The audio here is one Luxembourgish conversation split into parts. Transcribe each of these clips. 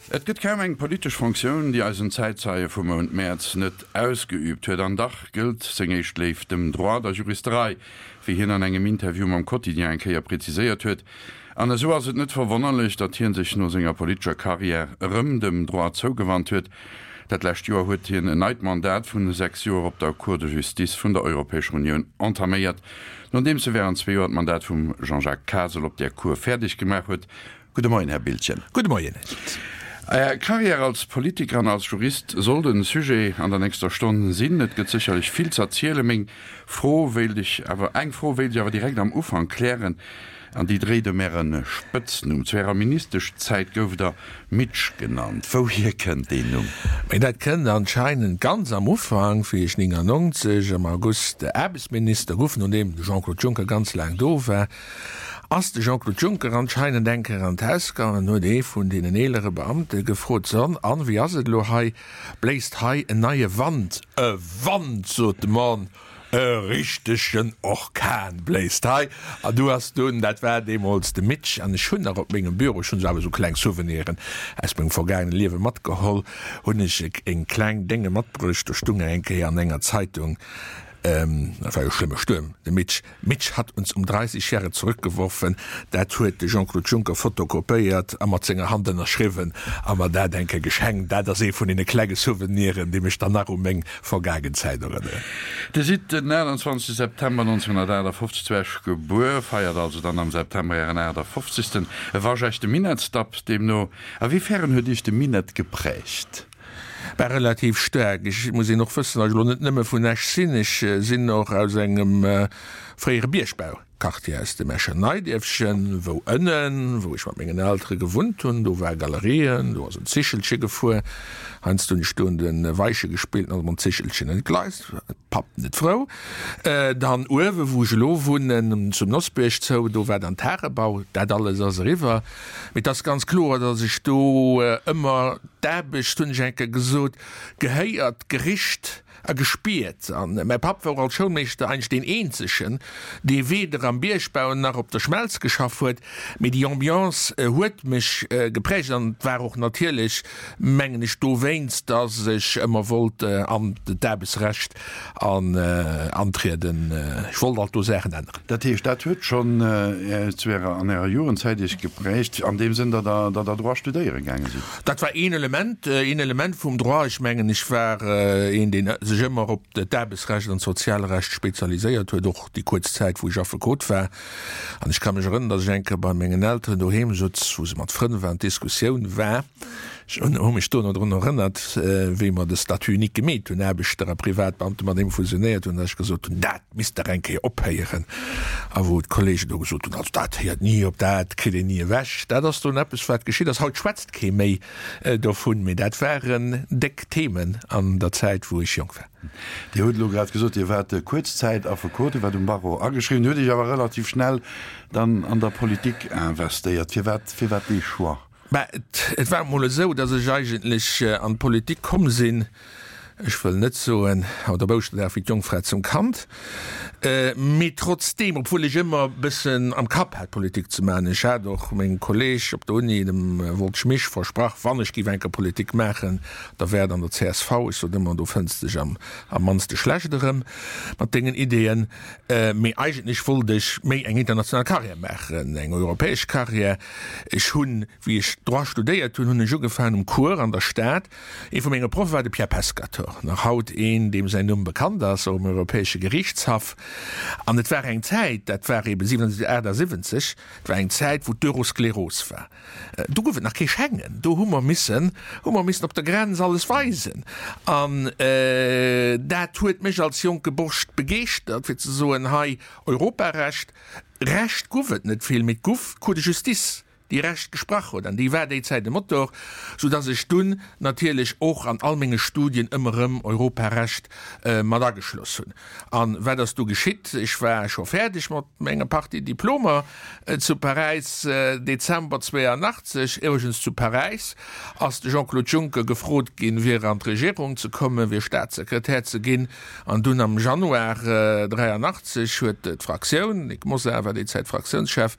Et gëtt kaum eng politesch Fonctioun, déi eisen Zäitzeie vum Mount Mäerz net ausgeüübt huet. An dach gëllt seng éischt Léift dem Droit, der Juristerei, wéi hien an engem Interview mam Quotidien eng Kéier präziséiert huet. An esou ass et net verwonnerlech, datt hie sech no senger politescher Karriär erëm dem Droit zougewannt huet. Dat lescht Joer huet hien en neit Mandat vun 6 Joer op der Cour de Justice vun der Europäescher Unioun entaméiert, nodeems e wärend zwee Joer d'Mandat vum Jean-Jacques Kasel op där Cour fäerdeg gemaach huet. Gudde Moien, Här Biltgen. Gudde Moien, Här Dietz. Är Carrière als Politiker an als Jurist soll den Sujet an der nächster Stonn sinn. Et gëtt sécherlech vill z'erzielen. Meng Fro wéilt ech awer, eng Fro wéilt ech awer direkt am Ufank klären, an déi dréit ëm Äre Spëtznumm. Zu Ärer Ministeschzäit gouft Der Mitsch genannt. Wouhier kënnt deen Numm? Mee dat kënnt anscheinend ganz am Ufank, wéi ech 99 am August Aarbechtsminister guff, nodeem de Jean-Claude Juncker ganz laang do war, Ass de Jean-Claude Juncker anscheinend eng Kéier an d'Haus gaangen an huet ee vun deenen eelere Beamte gefrot, So, an wéi ass et elo hei? Bléist hei en neie Wand? E Wand, sot de Mann, e richtegen Orkan bléist hei. An du ass dunn, dat war deemools de Mitch, an ech hunn nach op mengem Büro, ech hunn esou awer esou kleng Souveniren aus mengem vergaangene Liewe matgeholl, hunn ech eng kleng Dénge matbruecht, do stung eng Kéier an enger Zeitung, Dat war jo e schlëmme Stuerm, de Mitch. Mitch hat uns um 30 Jahre zurückgeworfen. Dat huet de Jean-Claude Juncker fotokopéiert a mat senger Hand ënnerschriwwen a mer dat eng Kéier geschenkt. Dat ass ee vun deene klenge Souveniren, déi mech dann nach u meng vergaangen Zäit erënneren. Dir sidd den 28 September 1958 zu Esch gebuer, feiert also dann am September Ären 58. E waschechte Minettsdapp deemno. A wéi fern huet Iech de Minett geprägt? Bah, relativ staark. Ech muss een och wëssen, datt ech elo net nëmme vun Esch sinn. Ech sinn och aus engem fréiere Biergbauquartier, aus dem Escher Neidierfchen, wou ënnen, wou ech mat mengen Eltere gewunnt hunn, do war Galerien, do ass en Zichelche gefuer. Heiansdo hunn ech do un de Weiche gespillt, an ass mam Zichelchen entgleist. Papp net frou. Dann uewe wou ech elo wunnen, zum Nossbierg zou, do war dann Tagebau. Dat alles ass eriwwer. Mee et ass ganz kloer, datt ech do ëmmer d'Aarbecht, hunn ech eng Kéier gesot, gehéiert, gericht a gespiert. An mäi Papp war och als Schoulmeeschter eigentlech deen eenzegen, dee weder am Biergbau nach op der Schmelz geschaff huet. Mee déi Ambiance huet mech geprägt an et war och natierlech, mengen ech, dowéinst, datt ech ëmmer wollt an d'Aarbechtsrecht antrieden. Ech wollt alt do Saachen änneren. Dat heescht, dat huet schonn zu Ärer, an Ärer Jugendzäit Iech geprägt, an deem Sënn, datt Der, datt Der Droit studéiere gaange sidd? Dat war een Element, een Element vum Droit. Ech mengen, ech war een, deen sech ëmmer op d'Aarbechtsrecht an d'Sozialrecht spezialiséiert huet, och déi kuerz Zäit, wou ech Affekot war. An ech ka mech erënnern, datt ech eng Kéier bei mengen Elteren doheem sutz, wou se mat Frënn waren, d'Diskussioun war, ech hu mech dono drun erënnert, wéi mer de Statut unique gemeet hunn, Aarbechter a Privatbeamte mat deem fusionéiert hunn, datt ech gesot hunn, dat misst dach eng Kéier ophéieren. A wou d'Kollegen do gesot hunn, also dat héiert ni op, dat kritt een ni ewech. Dat ass dunn eppes, wat geschitt ass. Haut schwätzt kee méi dovun, mee dat waren déck Themen an der Zäit, wou ech jonk war. Dir hutt elo grad gesot, Dir waart kuerz Zäit Affekot, Dir waart um Barreau ageschriwwen, hutt Iech awer relativ schnell dann an der Politik investéiert. Firwat, firwat dee Choix? Mä et war emol esou, datt ech eigentlech an d'Politik komm sinn, ech wëll net soen haut op Ouschterdag wéi d'Jongfra zum Kand, mee trotzdeem, obwuel ech ëmmer e bëssen am Kapp hat Politik ze maachen, ech hat och mengem Kolleeg op der Uni, dem Woltsch Misch, versprach, wann ech géif eng Kéier Politik maachen, Da wär et an der csv, ech sot ëmmer, do fënns dech am am mannste schlecht erëm mat dengen Ideeën. Mee eigentlech wollt ech méi eng international Carrière maachen, eng europäesch Carrière. Ech hunn, wéi ech Droit studéiert hunn, hunn ech ugefaangen um Cours an der Stad. Ee vu menge Proffe war de Pierre Pescatore, nach haut een, deem säin Numm bekannt ass, och um Europäesche Geriichtshaff. An et war eng Zäit, dat war eeben 77, 78, et war eng Zäit, wou d'Euroskleros war. Do gouf et nach kee Schengen, do hu mer missen, hu mer missen op der Grenz alles weisen. An dat huet mech als jonke Borscht begeeschtert, fir ze soen, hei Europarecht, Recht guff et net vill, mee et guff d'Cour de justice, déi Recht gesprach huet, an déi war déi Zäit e Motor, soudass ech dunn natierlech och an all menge Studien ëmmer erëm Europarecht mat ageschloss hunn. An wat ass du geschitt? Ech war scho fäerdeg mat menger Partie Diplomer zu Paräis, Dezember 82. Iwwregens zu Paräis ass de Jean-Claude Juncker gefrot ginn, fir an d'Regierung ze kommen, fir Staatssekretär ze ginn. An dunn am Januar 83 huet d'Fraktioun, Nic Mosar war déi Zäit Fraktiounschef,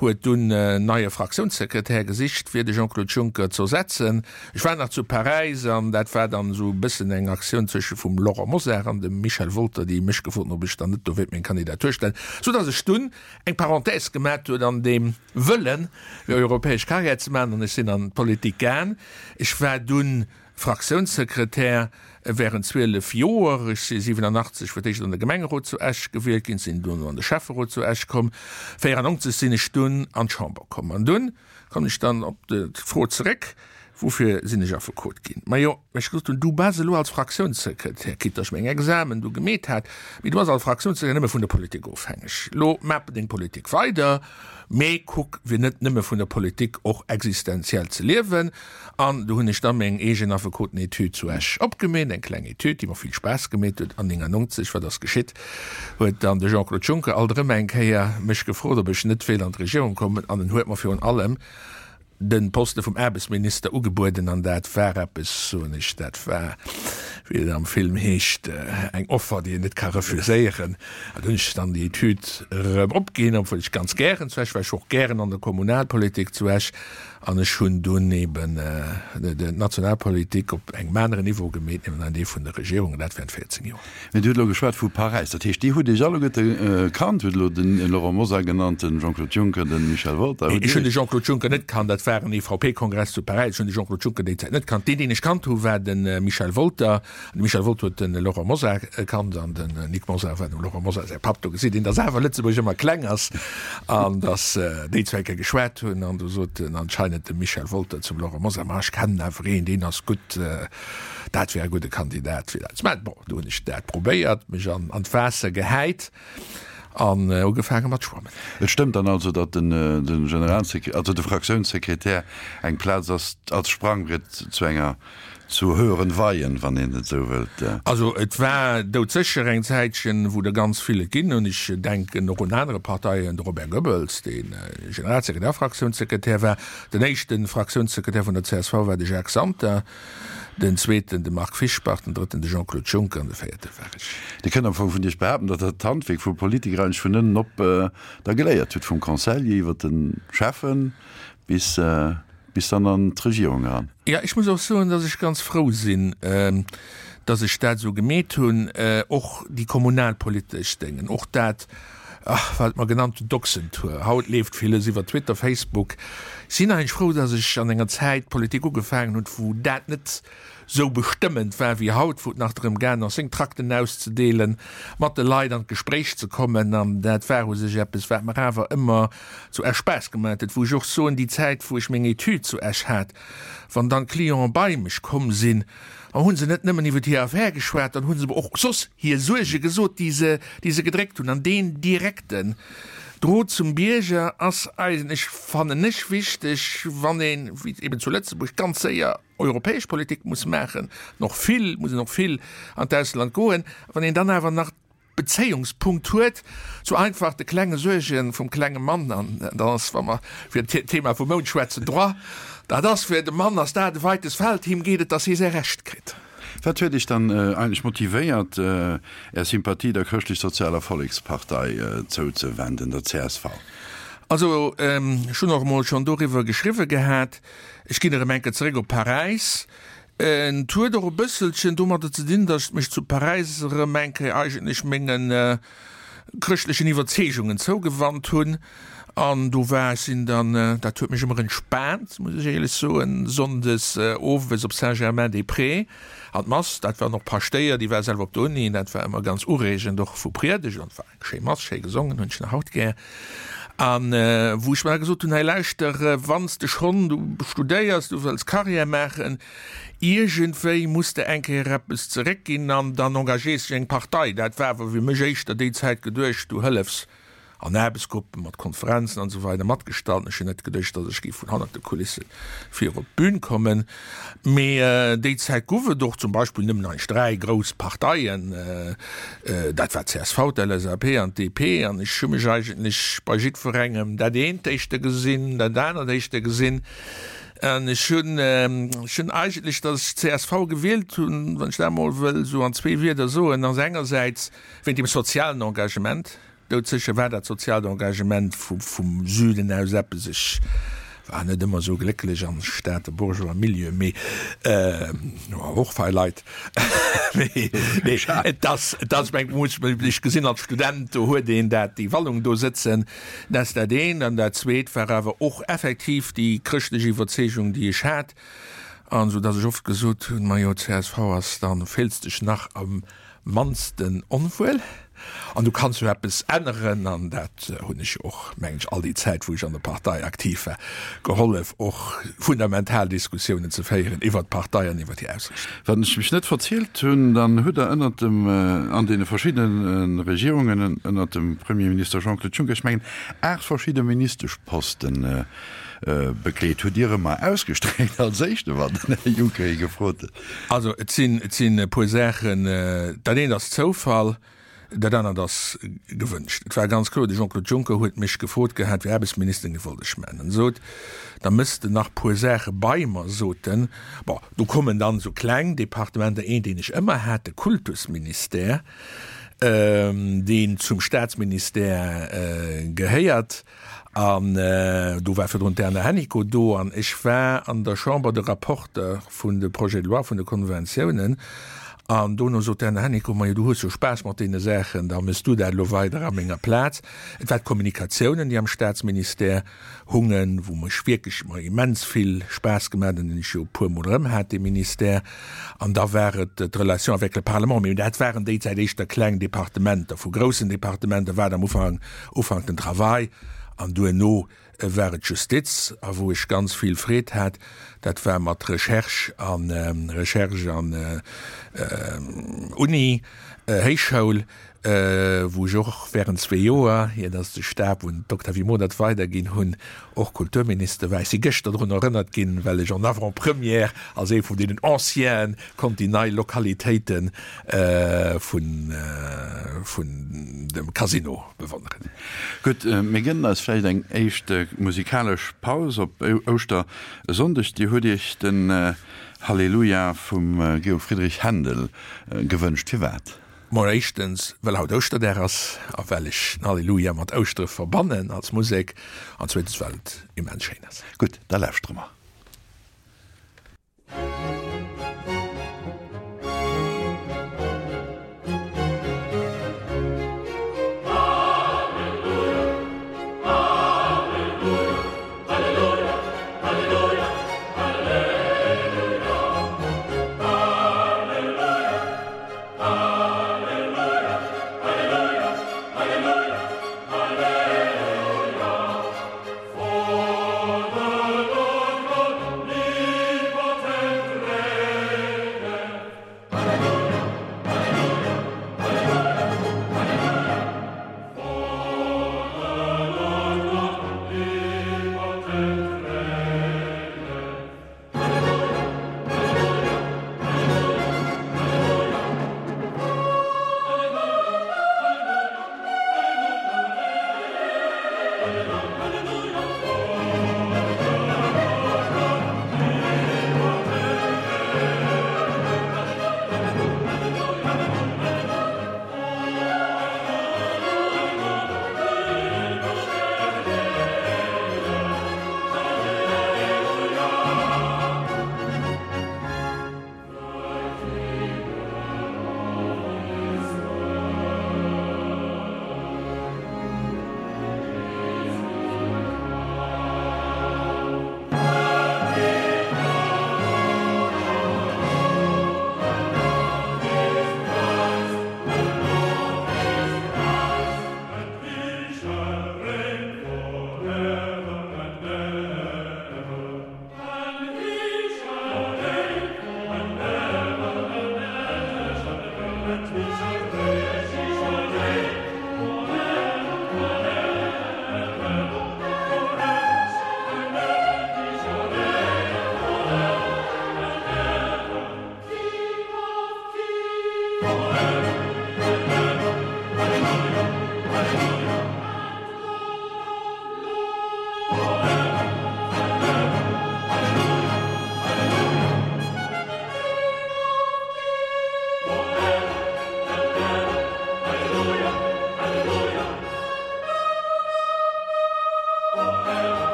huet dunn en neie. Fraktiounssekretär gesicht fir de Jean-Claude Juncker z'ersetzen. Ech war nach zu Paräis an dat war dann esou e bëssen eng Aktioun zwësche vum Laurent Mosar an dem Michel Wolter, déi mech gefrot hunn, ob ech dann net do wéilt meng Kandidatur stellen, sou datt ech dunn eng Parenthèse gemat hunn an deem Wëllen, fir europäesch Carrière ze maachen an ech sinn an d'Politik gaang. Ech war dunn Fraktiounssekretär während 12 Joer. Ech si 87 fir d'éischt an de Gemengerot zu Esch gewielt ginn, sinn duerno an de Schäfferot zu Esch komm. 94 sinn ech dunn an d'Chamber komm. An dunn kommen ech dann op d'Fro zeréck, Woufir sinn ech Affekot ginn? Majo, well ech gesot hunn, du bass elo als Fraktiounssekretär, quitte datt ech meng Examen du gemeet hat, mee du bass als Fraktiounssekretär nëmme vun der Politik ofhängeg. Elo maach deng Politik weider, mee kuck fir net nëmme vun der Politik och existenziell ze liewen. An do hunn ech da meng eegen Affekoten-Etüd zu Esch opgemeet, eng kleng Etüd, déi mer vill Spaass gemeet huet. An 99, wat ass geschitt, huet dann de Jean-Claude Juncker alt erëm eng Kéier mech gefrot, ob ech net wéilt an d'Regierung kommen. An en huet mer virun allem de Poste vum Aarbechtsminister ugebueden. An dat war eppes, soen ech, dat war, wéi et am Film heescht, eng Offer, déi een net ka refuséieren. An do hunn ech dann déi Etüd erëm opginn, obwuel ech ganz gären zu Esch war. Ech war och gären an der Kommunalpolitik zu Esch. An ech hunn dunn eben d'Nationalpolitik op engem aneren Niveau gemeet, nämlech an dee vun der Regierung, an dat während 14 Joer. Mee Dir hutt elo geschwat vu Paräis. Dat heescht, Dir hutt Iech alleguerte kannt, hutt elo de Laurent Mosar genannt, de Jean-Claude Juncker, de Michel Wolter. Ech hunn de Jean-Claude Juncker net kannt. Dat war en EVP-Kongress zu Paräis. Ech hunn de Jean-Claude Juncker déi Zäit net kannt. Deen, deen ech kannt hu war de Michel Wolter. De Michel Wolter huet de Laurent Mosar kannt an den Nic Mosar war dem Laurent Mosar säi Papp. Do gesäit een, datt awer Lëtzebuerg ëmmer kleng ass an datt déi zwou eng Kéier geschwat hunn. An do sot en anscheinend de Michel Wolter zum Laurent Mosar, Ma ech kennen awer een, deen ass gutt, dat wär e gudde Kandidat fir dat. Mä bon, do hunn ech dat probéiert, mech an d'Waasser gehäit an ugefaange mat schwammen. Et stëmmt dann also, datt den Generalsekre-, also de Fraktiounssekretär eng Plaz ass als Sprangbriet zu enger Zu höheren Weihen, wann een et esou wëllt. Also et war doudsécher eng Zäitchen, wou der ganz vill et ginn hunn. Ech denken och un anere Parteien, de Robert Goebbels, dee Generalsekretär a Fraktiounssekretär war. Den éischte Fraktiounssekretär vun der csv war de Jacques Santer, den zweeten de Marc Fischbach, den drëtten de Jean-Claude Juncker an de véierte war ech. Dir kënnt am Fong vun Iech behaapten, datt Der d'Handwierk vum Politiker eigentlech vun ënnen op da geléiert hutt, vum Conseiller iwwer de Schäffen bis Bis dann an d'Regierung eran. Jo, ech muss och soen, dass ech ganz frou sinn, dass ech dat esou gemeet hunn, och déi kommunalpolitesch Déngen, och dat, wat mer genannt hunn, d'Ochsentour. Haut leeft villes iwwer Twitter, Facebook. Ech sinn eigentlech frou, dass ech an enger Zäit Politik ugefaangen hunn, wou dat net sou bestëmmend war wéi haut, wou et nach drëm gaangen ass, seng Trakten auszedeelen, mat de Leit an d'Gespréich ze kommen. An dat war u sech eppes, wat mer awer ëmmer zu Esch Spaass gemaat huet, wou ech och soen, déi Zäit, wou ech meng Etüd zu Esch hat, wann dann d'Clienten bei mech komm sinn, da hu se net nëmmen iwwer hir Affär geschwat, dann hu se mer och soss hir Suerge gesot, déi se, déi se gedréckt hunn. An deen direkten Drot zum Bierger ass eigentlech, fannen ech, wichteg, wann een, wéi eben zu Lëtzebuerg, ganz séier europäesch Politik muss maachen, an och vill, muss een och vill an d'Ausland goen, wann een dann awer nach Bezéiungspunkt huet zu einfach de klenge Suerge vum klenge Mann, an dann ass, wa mer fir d'Thema vum Mount schwätzen, Droit, dat ass fir de Mann ass dat e weites Feld, him geet et, datt hie säi Recht kritt. Wat huet Iech dann eigentlech motivéiert, Är Sympathie der Chrëschtlech-Sozialer Vollekspartei zouzewenden, der csv? Also, ech hunn och emol schonn doriwwer geschriwwe gehat. Ech ginn erëm eng Kéier zeréck op Paräis. Et huet och e bësselchen domadder ze dinn, datt ech mech zu Paräis erëm eng Kéier eigentlech menge chrëschtlechen Iwwerzeegungen zougewannt hunn. An do war ech sinn dann, dat huet mech ëmmer entspaant, muss ech éierlech soen, sonndes owes op Saint-Germain-des-Prés an d'Mass. Dat waren och Paschtéier, déi war selwer op der Uni, dat war ëmmer ganz ureegend, och vu Priedegt. An et war eng schéi Mass, schéi gesongen, hunn ech nach haut gär. An wou ech mer da gesot hunn, hei lauschter, wann s de schonn, du studéiers, du wëlls Carrière maachen, iergendwéi muss de eng Kéier eppes zeréckginn an dann engagéiers dech eng Partei. Dat war awer fir mech éischter déi Zäit geduecht, du hëllefs an Aarbechtsgruppen, mat Konferenzen an esou weider matgestalten. Ech hunn net geduecht, datt ech géif vun hannert de Kulisse vir op d'Bün kommen. Mee déi Zäit guff et och zum Beispill nëmmen eigentlech 3 grouss Parteien, dat war d'CSV, d'LSAP an d'DP. An ech hu mech eigentlech bei jiddwerengem dat eent éischter gesinn, dat anert éischter gesinn. An ech hunn, ech hunn eigentlech, datt ech d'CSV gewielt hunn, wann ech dat emol wëll esou an zwee Wierder soen, ass engersäits wéint dem sozialen Engagement, Doudsécher war dat soziaalt Engagement vum Süden aus eppes. Ech War net ëmmer esou glécklech am Stater Bourgeois Milieu, mee och fei Leit. Mee nee, et ass, et ass, meng, muss ech gesinn als Student, do huet een dat, déi Wallung do sëtzen, dat ass dat eent. An dat zweet war awer och effektiv déi chrëschtlech Iwwerzeegung, déi ech hat, an esou datt ech oft gesot hunn, majo, csv ass, da fills dech nach am mannsten onwuel an du kanns jo eppes änneren an dat hunn ech jo och, mengen ech, all déi Zäit wou ech an der Partei aktiv war, gehollef och fundamental Diskussiounen ze féieren iwwert d'Partei an iwwert hir Ausrichtung. Wann ech mech net verzielt hunn, dann hutt Der ënnert dem, an deene verschiddene Regierungen ënnert dem Premierminister Jean-Claude Juncker, ech mengen 8 verschidde Ministeschposten bekleet. Hutt Dir ëmmer ausgestréckt als éischte wann den Här Juncker ee gefrot huet? Also et sinn, et sinn e puer Saachen. Dat eent ass Zoufall, dat anert ass gewënscht. Et war ganz kloer, de Jean-Claude Juncker huet mech gefrot gehat, fir Aarbechtsminister ginn, wollt ech maachen. En sot, da mëss de nach puer Saache bei mer, sot en. Bon, do kommen dann esou kleng Departementer, een deen ech ëmmer hat, de Kultusministère, deen zum Staatsministère gehéiert. An do war virdrun d'Erna Hennicot do an ech war an der Chamber de Rapporteur vun de Projets de loi, vun de Konventiounen. An dono sot d'Erna Hennicot, Majo, du hues jo Spaass mat deene Saachen, da méchs du dat elo weider a menger Plaz. Et war d'Kommunikatiounen, déi am Staatsministère hungen, wou mech wierklech mer immens vill Spaass gemaach hunn, deen ech jo e puermol erëm hat, dee Ministère. An da war et d'Relation avec le Parlement. Mee dat waren déi Zäit éischter kleng Departementer. Vu groussen Departementer war et am Ufank Ufank den Travail an duerno war et d'Justiz a wou ech ganz vill Freed hat, dat war mat Recherche an Recherche an Uni, Héichschoul, wou ech och während zwee Joer, ier datt de Stab un d'Octavie Modert weiderginn hunn, och Kulturminister war. Ech si gëschter drun erënnert ginn, well ech en avant-première als ee vun deenen Ancienen konnt déi nei Lokalitéite vun dem Casino bewonneren. Gutt, mir gënnen eis vläicht eng éischt musikalesch Paus op Ouschtersonndeg. Dir hutt Iech den Halleluja vum Georg Friedrich Händel gewënscht. Firwat? Mol éischtens, well haut Ouschterdag ass a well ech den Halleluja mat Ouschtere verbannen als Musek, an zweetens, well et immens schéin ass. Gutt, da lauschtere mer.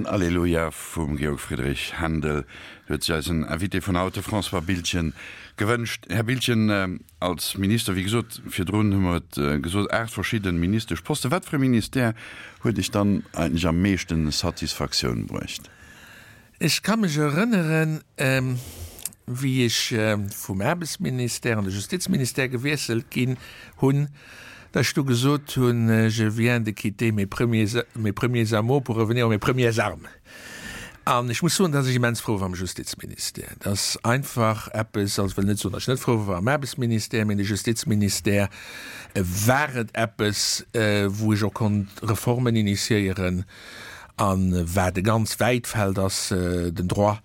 Alleluia vum Georg Friedrich Händel huet sech eisen Invité vun haut, de François Biltgen, gewënscht. Här Biltgen, als Minister, wéi gesot, virdrun hu mer et gesot, 8 verschidde Ministeschposten. Wat fir e Ministère huet Iech dann eigentlech am meeschten Satisfaktioun bruecht? Ech ka mech erënneren, wéi ech vum Aarbechtsministère an de Justizministère gewiesselt ginn hunn, datt ech du gesot hunn, Je viens de quitter mes premiers, mes premiers amours pour revenir à mes premières armes. An ech muss soen, datt ech immens frou war am Justizministère. Dat ass einfach eppes, also ech wëll net soen, datt ech net frou war am Aarbechtsministère, mee de Justizministère war et eppes, wou ech och konnt Reformen initiéieren, A wat e ganz wäit Feld ass, den Droit.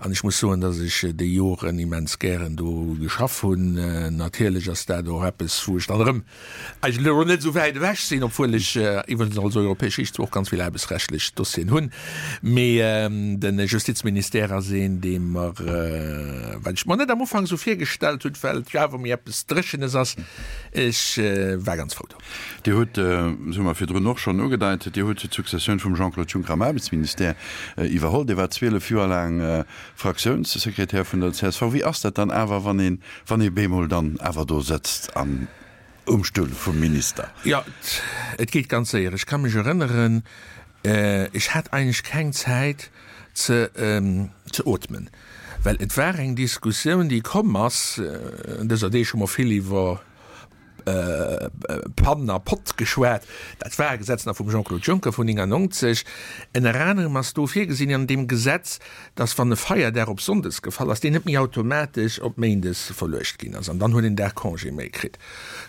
An ech muss soen, datt ech déi Joren immens gären do geschaff hunn. Natierlech ass dat och eppes, wou ech dann erëm eigentlech elo net esou wäit ewech sinn, obwuel ech iwwregens als europäesch Riichter och ganz vill aarbechtsrechtlech Dossieren hunn. Mee de Justizministère ass een, dee mer, wat ech mer net am Ufank esou virgestallt hunn, well et jo awer méi eppes Dréchenes ass, ech war ganz frou do. Dir hutt, dat hu mer virdrun och schonn ugedeit, Dir hutt d'Successioun vum Jean-Claude Juncker am Aarbechtsministère iwwerholl. Dir waart 12 Joer laang Fraktiounssekretär vun der csv. Wéi ass dat dann awer, wann een, wann ee bemol dann awer do sëtzt an um Stull vum Minister? Jo, et geet ganz séier. Ech ka mech erënneren, ech hat eigentlech keng Zäit ze ze ootmen, well et war eng Diskussioun, déi komm ass, dëser Deeg hu mer vill iwwer Pann a Pott geschwat. Dat war e Gesetz nach vum Jean-Claude Juncker vun 99. Ënner anerem ass do virgesinn an deem Gesetz, dass wann e Feierdag op Sonndes gefall ass, deen net méi automatesch op Méindes verluecht ginn ass an dann huet een Dag Congé méi kritt.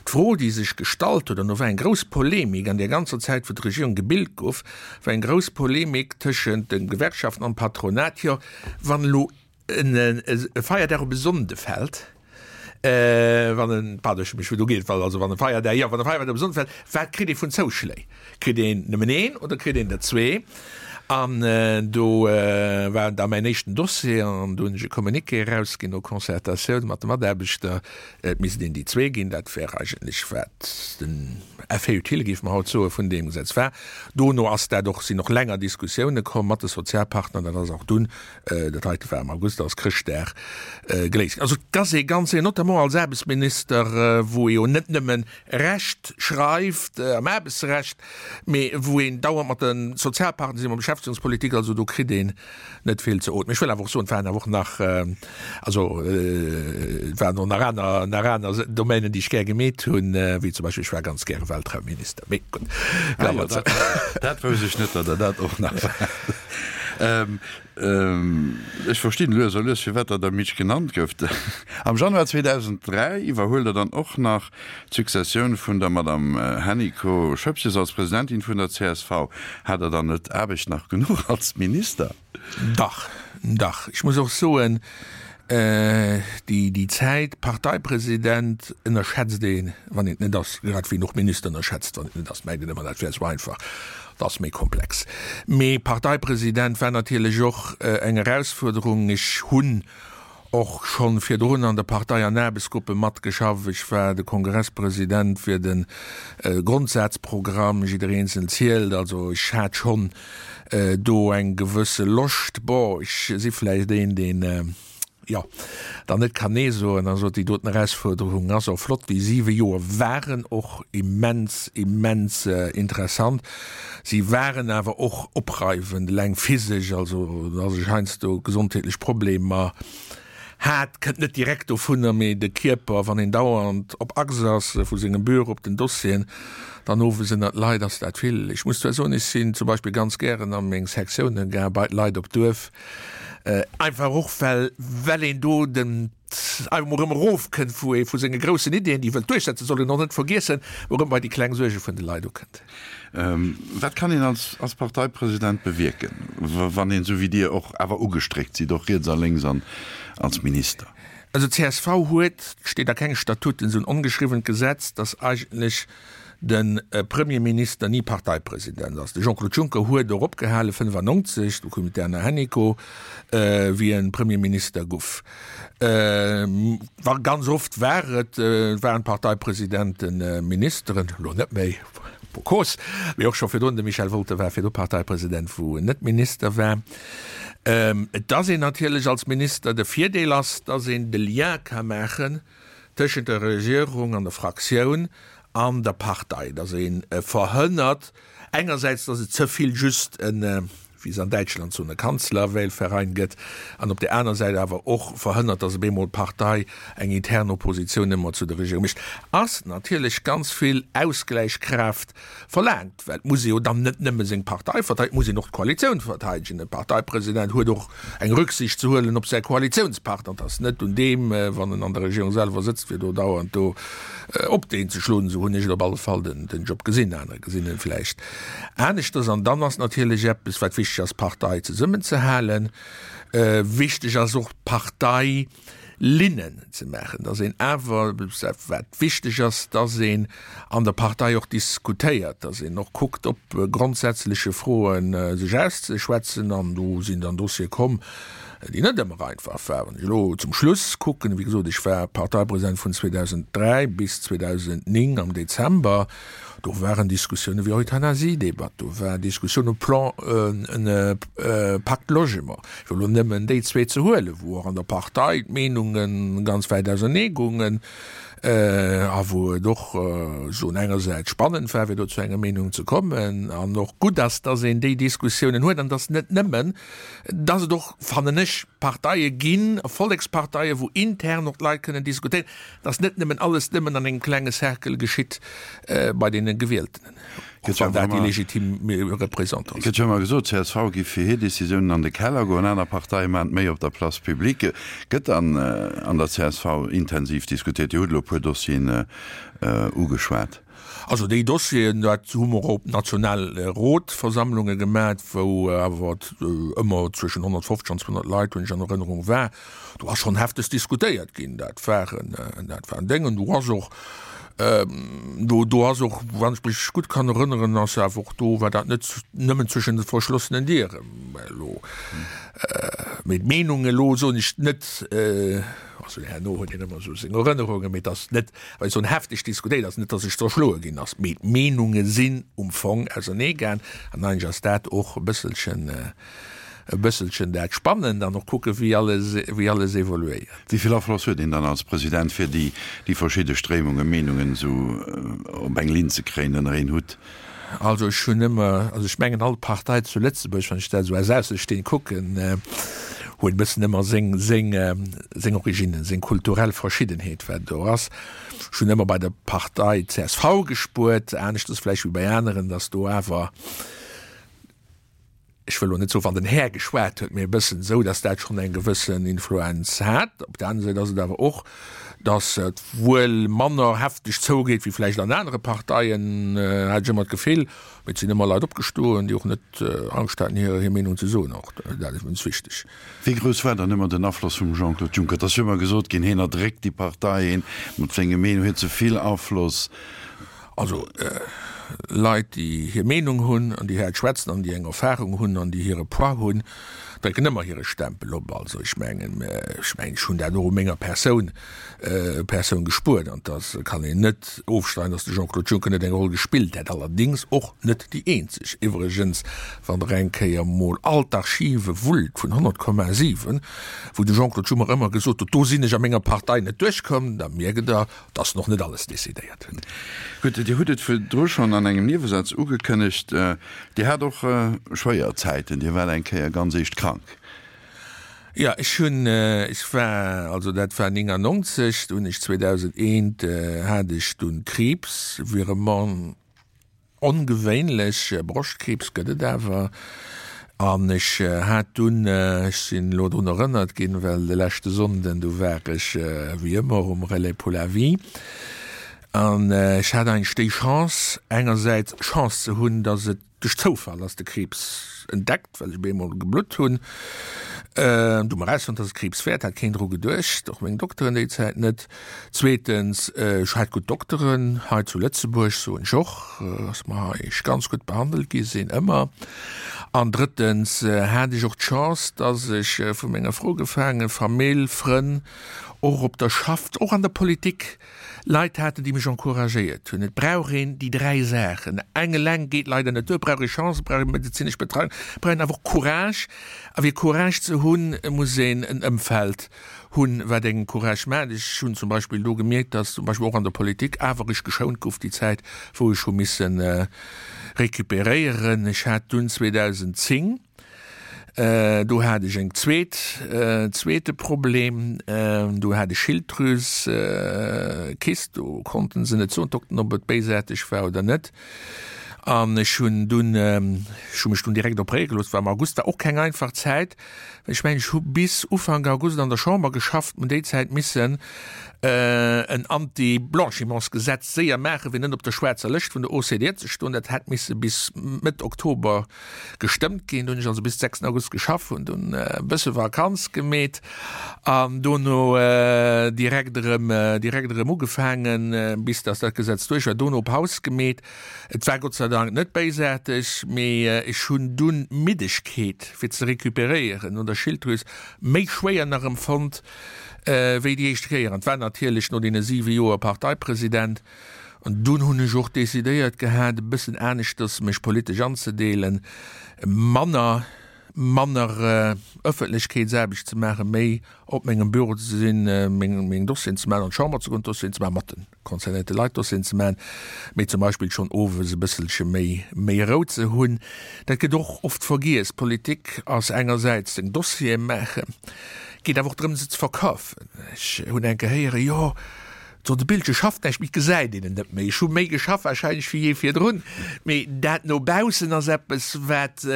D'Fro, déi sech gestallt huet, an do war eng grouss Polemik an där ganzer Zäit, wou d'Regierung gebilt gouf, war eng grouss Polemik tëschent de Gewerkschaften an dem Patronat, jo wann elo e Feierdag op e Sonnde fält, wann en, pardon, ech hu mech virdu geet, also wann e Feierdag, jo, wann e Feierdag op e Sonnde fält, wat kritt ee vun Zouschléi? Kritt een nëmmen een oder kritt een der zwee? An do war da mäin éischten Dossier an do hunn ech e Communiqué erausginn no Concertatioun mat de Mataarbechter, et misst een déi zwee ginn. Dat wär eigentlech wat den Effet utile, géife mer haut soen, vun deem Gesetz war. Dono ass dat och, sinn och länger Diskussioune komm mat de Sozialpartner, dat ass och dunn Dat heite war am August, ass Chrëschtdag geléist ginn. Also et ass ee ganz séier, notamment als Aarbechtsminister, wou ee jo net nëmmen Recht schreift am Aarbechtsrecht, mee wou een dauernd mat de Sozialpartner sinn, mat Beschäftegungspolitik, also do kritt een net vill ze ootmen. Ech wëll awer och soen, et waren awer och nach, also et waren och nach aner, nach aner Domänen, déi ech gär gemeet hunn, wéi zum Beispill, ech war ganz gäre Weltraumminister, mee gutt. Ah jo, dat, dat wousst ech net, datt Der dat och nach waart. Ech verstinn lues a lues, firwat Der der Mitch genannt gouft. Am Januar 2003 iwwerhuelt Der dann och nach d'Successioun vun der Madame Hennicot-Schoepges als Presidentin vun der csv. Hat Der dann net Aarbecht nach genuch als Minister? Dach, dach. Ech muss och soen, déi Zäit Parteipresident ënnerschätzt een, wann een et net ass, grad wéi een och Minister ënnerschätzt, wann een et net ass, mengt een ëmmer, dat wär esou einfach. Dat ass méi komplex. Mee Parteipresident war natierlech och eng Erausfuerderung. Ech hunn och schonn virdrun an der Partei an Aarbechtsgruppe matgeschafft. Ech war de Kongresspresident fir de Grondsazprogramm Jidder Eenzel zielt. Also ech hat schonn do eng gewësse Loscht. Bon, ech si vläicht een, deen, jo, dann net kann Nee soen. Also déi doten Erausfuerderung ass och flott. Déi siwe Joer waren och immens, immens interessant. Si waren awer och opreiwend, eleng physesch, also datt ech heiansdo gesondheetlech Problemer hat, kënnt net direkt dovunner, mee de Kierper, wann een dauernd op Achs ass, vu sengem Büro op den Dossieren, dann owes ënnert d'Leit, ass dat vill. Ech muss zwar soen, ech sinn zum Beispill ganz gären a meng Sektiounen gaang, bei d'Leit op d'Duerf, einfach och well well een do den einfach mol erëm erofkënnt vu ee vu senge groussen Ideeën, déi e wëllt duerchsetzen, soll een och net vergiessen, erëm bei déi kleng Suerge vun de Leit ukënnt. Wat kann een als als Parteipresident bewierken, wann een, esou wéi Dir, och awer ugestréckt sidd, och riets a lénks an als Minister? Also csv huet, steet a kenge Statuten, esou en ongeschriwwent Gesetz, datt eigentlech de Premierminister ni Parteipresident ass. De Jean-Claude Juncker huet och opgehale 95, do koum d'Erna Hennicot, wéi en Premierminister guff. Wa ganz oft war et, waren d'Parteipresidenten Ministeren, elo net méi. Pour cause, mee och scho virdrun, de Michel Wolter war virdru Parteipresident, wou en net Minister war. Et ass een natierlech als Minister, de Virdeel ass, dass een de Lien ka maachen tëschent der Regierung an der Fraktioun an der Partei, dass ee verhënnert engersäits, dass et ze vill just en, wéi se an Däitschland soen, e Kanzlerwählverein gëtt, an op där aner Säit awer och verhënnert, dass op eemol d'Partei eng intern Oppositioun ëmmer zu der Regierung mécht, ass natierlech ganz vill Ausgläichkraaft verlaangt, well et muss ee jo dann net nëmme seng Partei verteidegen, et muss een och d'Koalitioun verteidegen. E Parteipresident huet och eng Rücksicht ze huelen op säi Koalitiounspartner. Et ass net un deem, wann en an der Regierung selwer sëtzt, fir do dauernd do op deen ze schloen. Esou hunn ech et op alle Fall den Job gesinn. Aner gesinn en vläicht aneschters. An dann ass natierlech eppes, wat wichteg ass, d'Partei zesummenzehalen. Wichteg ass och d'Partei Linnen ze maachen, datt een awer, wat wichteg ass, datt een an der Partei och diskutéiert, datt een och kuckt op grondsätzleche Froe sech auszeschwätzen. An do sinn dann Dossiere komm, déi net ëmmer einfach waren. Wann ech elo zum Schluss kucken, wéi gesot, ech war Parteipresident vun 2003 bis 2009 am Dezember, do waren Diskussioune wéi Euthanasiedebatt, do war Diskussioun um Plan Pacte Logement, fir elo nëmmen déi zwee ze huelen, wou och an der Partei d'Meenunge ganz wäit ausernee goungen a wou et och soen engersäits spannend war, fir do zu enger Meenung ze kommen an och gutt ass, dass een déi Diskussiounen huet an dass net nëmmen, dass et och, fannen ech, Parteie ginn, Volleksparteie, wou intern och d'Leit kënnen diskutéieren, dass net nëmmen alles nëmmen an engem klenge Cercle geschitt bei deene Gewieltenen, och wann dat déi legitim Représentanten sinn. Gëtt jo ëmmer gesot, csv giff fir hir Decisiounen an de Keller goen, aner Parteie maachen et méi op der Place publique. Gëtt dann an der csv intensiv diskutéiert? Dir hutt elo e puer Dossieren ugeschwat. Also déi Dossieren, dat hu mer op Nationalrotversammlunge gemat, wou awer ëmmer zwëschen 150 an 200 Leit, hunn ech an Erënnerung, war. Do ass schonn hefteg diskutéiert ginn. Dat waren, dat waren Déngen. Do ass och, do, do ass och, wann ech mech gutt kann erënneren, ass awer och do, war dat net nëmmen zwëschen de verschlossenen Dieren elo. Mee d'Meenung elo soen ech net, also herno huet een ëmmer esou seng Erënnerungen, mee et ass net, well soen hefteg diskutéiert ass, net datt sech zerschloe ginn ass, mee d'Meenunge sinn um Fong ausernee gaang an eigentlech ass dat och e bësselchen, e bësselchen dat Spannend an och kucke wéi alles, wéi alles evoluéiert. Wéi vill Afloss huet een dann als President fir déi, déi verschidde Stréimungen, Meenungen esou op eng Linn ze kréien, ënner een Hutt? Also ech hunn ëmmer, also ech mengen all Partei zu Lëtzebuerg, wann ech dat esou aus Aussestehend kucken, huet e bëssen ëmmer seng, seng, seng Originen, seng kulturell Verschiddenheet wat do ass. Ech hunn ëmmer bei der Partei csv gespuert, aneschters vläicht wéi bei aneren, datt do awer, ech wëll elo net soen, wann den Här geschwat huet, mee e bëssen esou, datt dat schonn eng gewëssen Influenz hat. Op der aner Säit ass et awer och, datt et wuel manner hefteg zougeet wéi vläicht an anere Parteien, hat ech ëmmer d'Gefill. Mee et sinn ëmmer Leit opgestoen, déi och net Angscht haten, hir Meenung ze soen. Och dat ass immens wichteg. Wéi grouss war dann ëmmer den Afloss vum Jean-Claude Juncker? Et ass jo ëmmer gesot ginn, hien erdréckt déi Partei, hien mat senge Meenung huet ze vill Afloss. Also Leit, déi hir Meenung hunn an déi haart schwätzen an déi eng Erfahrung hunn an déi hire Poids hunn, drécken ëmmer hire Stempel op. Also ech mengen, ech mengen, ech hunn dat och u menger Persoun, Persoun gespuert an dass kann een net ofstreiden, dass de Jean-Claude Juncker net eng Roll gespillt hätt, allerdéngs och net déi eenzeg. Iwwregens, wann Der eng Kéier mol all d'Archive wullt vun 100,7, wou de Jean-Claude Juncker ëmmer gesot huet, do sinn ech a menger Partei net duerchkomm, da mierkt Der, dass nach net alles decidéiert hunn. Gutt, Dir hutt et virdru schonn an engem Niewesaz ugekënnegt, Dir hat och schwéier Zäiten, Dir waart eng Kéier ganz eescht krank. Jo, ech hunn, ech war, also dat war 99, do hunn ech 2001 hat ech dunn Kriibs, Virement Ongewéinlech, Broschtkriibs gëtt et awer. An ech hat dunn, ech sinn elo drun erënnert ginn, well de leschte Sonnden, do war ech wéi ëmmer um Relais pour la vie, an ech hat eigentlech déi Chance, engersäits Chance ze hunn, datt et duerch Zoufall ass de Kriibs entdeckt, well ech op eemol geblutt hunn. Du mer erausfonnt, dass et Kriibs wär, hat keen dru geduecht, och meng Dokteren déi Zäit net. Zweetens, ech hat gutt Dokteren hei zu Lëtzebuerg, soen ech och, dass mer hei ganz gutt behandelt gi sinn, ëmmer. An drëttens hat ech och d'Chance, dass ech vu menger Fro gefaangen, Famill, Frënn, och op der Schaff, och an der Politik. Leit haten, déi mech encouragéiert hunn. Et brauch een déi 3 Saachen. Eng eleng geet leider net duer. Et brauch ee Chance, et brauch ee medezinesch Betreiung, et brauch een awer och Courage. A fir Courage ze hunn, muss een en Ëmfeld hunn, wat engem Courage maacht. Ech hunn zum Beispill do gemierkt, dass zum Beispill och an der Politik awer ech geschount gouf déi Zäit, wou ech hu misse recuperéieren. Ech hat dunn 2010, Do hat ech eng zweet, zweete Problem, do hat ech Schilddrüsekyst, do konnten se net soen, d'Dokten, ob et béisaarteg war oder net. An ech hunn dunn, ech hu mech dunn direkt opréiere gelooss, war am August, war och keng einfach Zäit, well ech mengen, ech hu bis Ufank August an der Chamber geschafft, hunn déi Zäit missen en Anti-Blanchimentsgesetz séier maachen, fir net op der schwaarzer Lëscht vun der OCDE ze stoen. Dat hätt misse bis Mëtt Oktober gestëmmt ginn. Do hunn ech also bis 6 August geschaff, hunn dunn e bësse Vakanz gemeet an dono direkt erëm, direkt erëm ugefaangen, bis datt dat Gesetz duerch war. Dono Paus gemeet. Et war Gott sei Dank net béisaarteg, mee ech hunn dunn d'Middegkeet, fir ze recuperéieren no der Schilddrüs, méi schwéier nach empfonnt wéi déi éischt Kéier. An et war natierlech no deene siwe Joer Parteipresident, An dunn hunn ech och decidéiert gehat, e bëssen aneschters mech politesch anzedeelen, manner, manner Ëffentlechkeetsaarbecht ze maachen, méi op mengem Büro ze sinn, meng, meng Dossieren ze maachen, an d'Chamber ze goen, Dossieren ze maachen, mat de concernéierte Leit Dossieren ze maachen, mee zum Beispill schonn owes e bësselche méi, méi Rou ze hunn. Dat gëtt och oft vergiess. Politik ass engersäits seng Dossiere maachen, geet awer och drëm, se ze verkafen. Ech hunn eng Kéier héieren, jo, So, de Bildche schafft näischt méi, et gesäit een en net méi. Ech hu méi geschafft warscheinlech wéi jee virdrun, mee dat no baussen ass eppes, wat,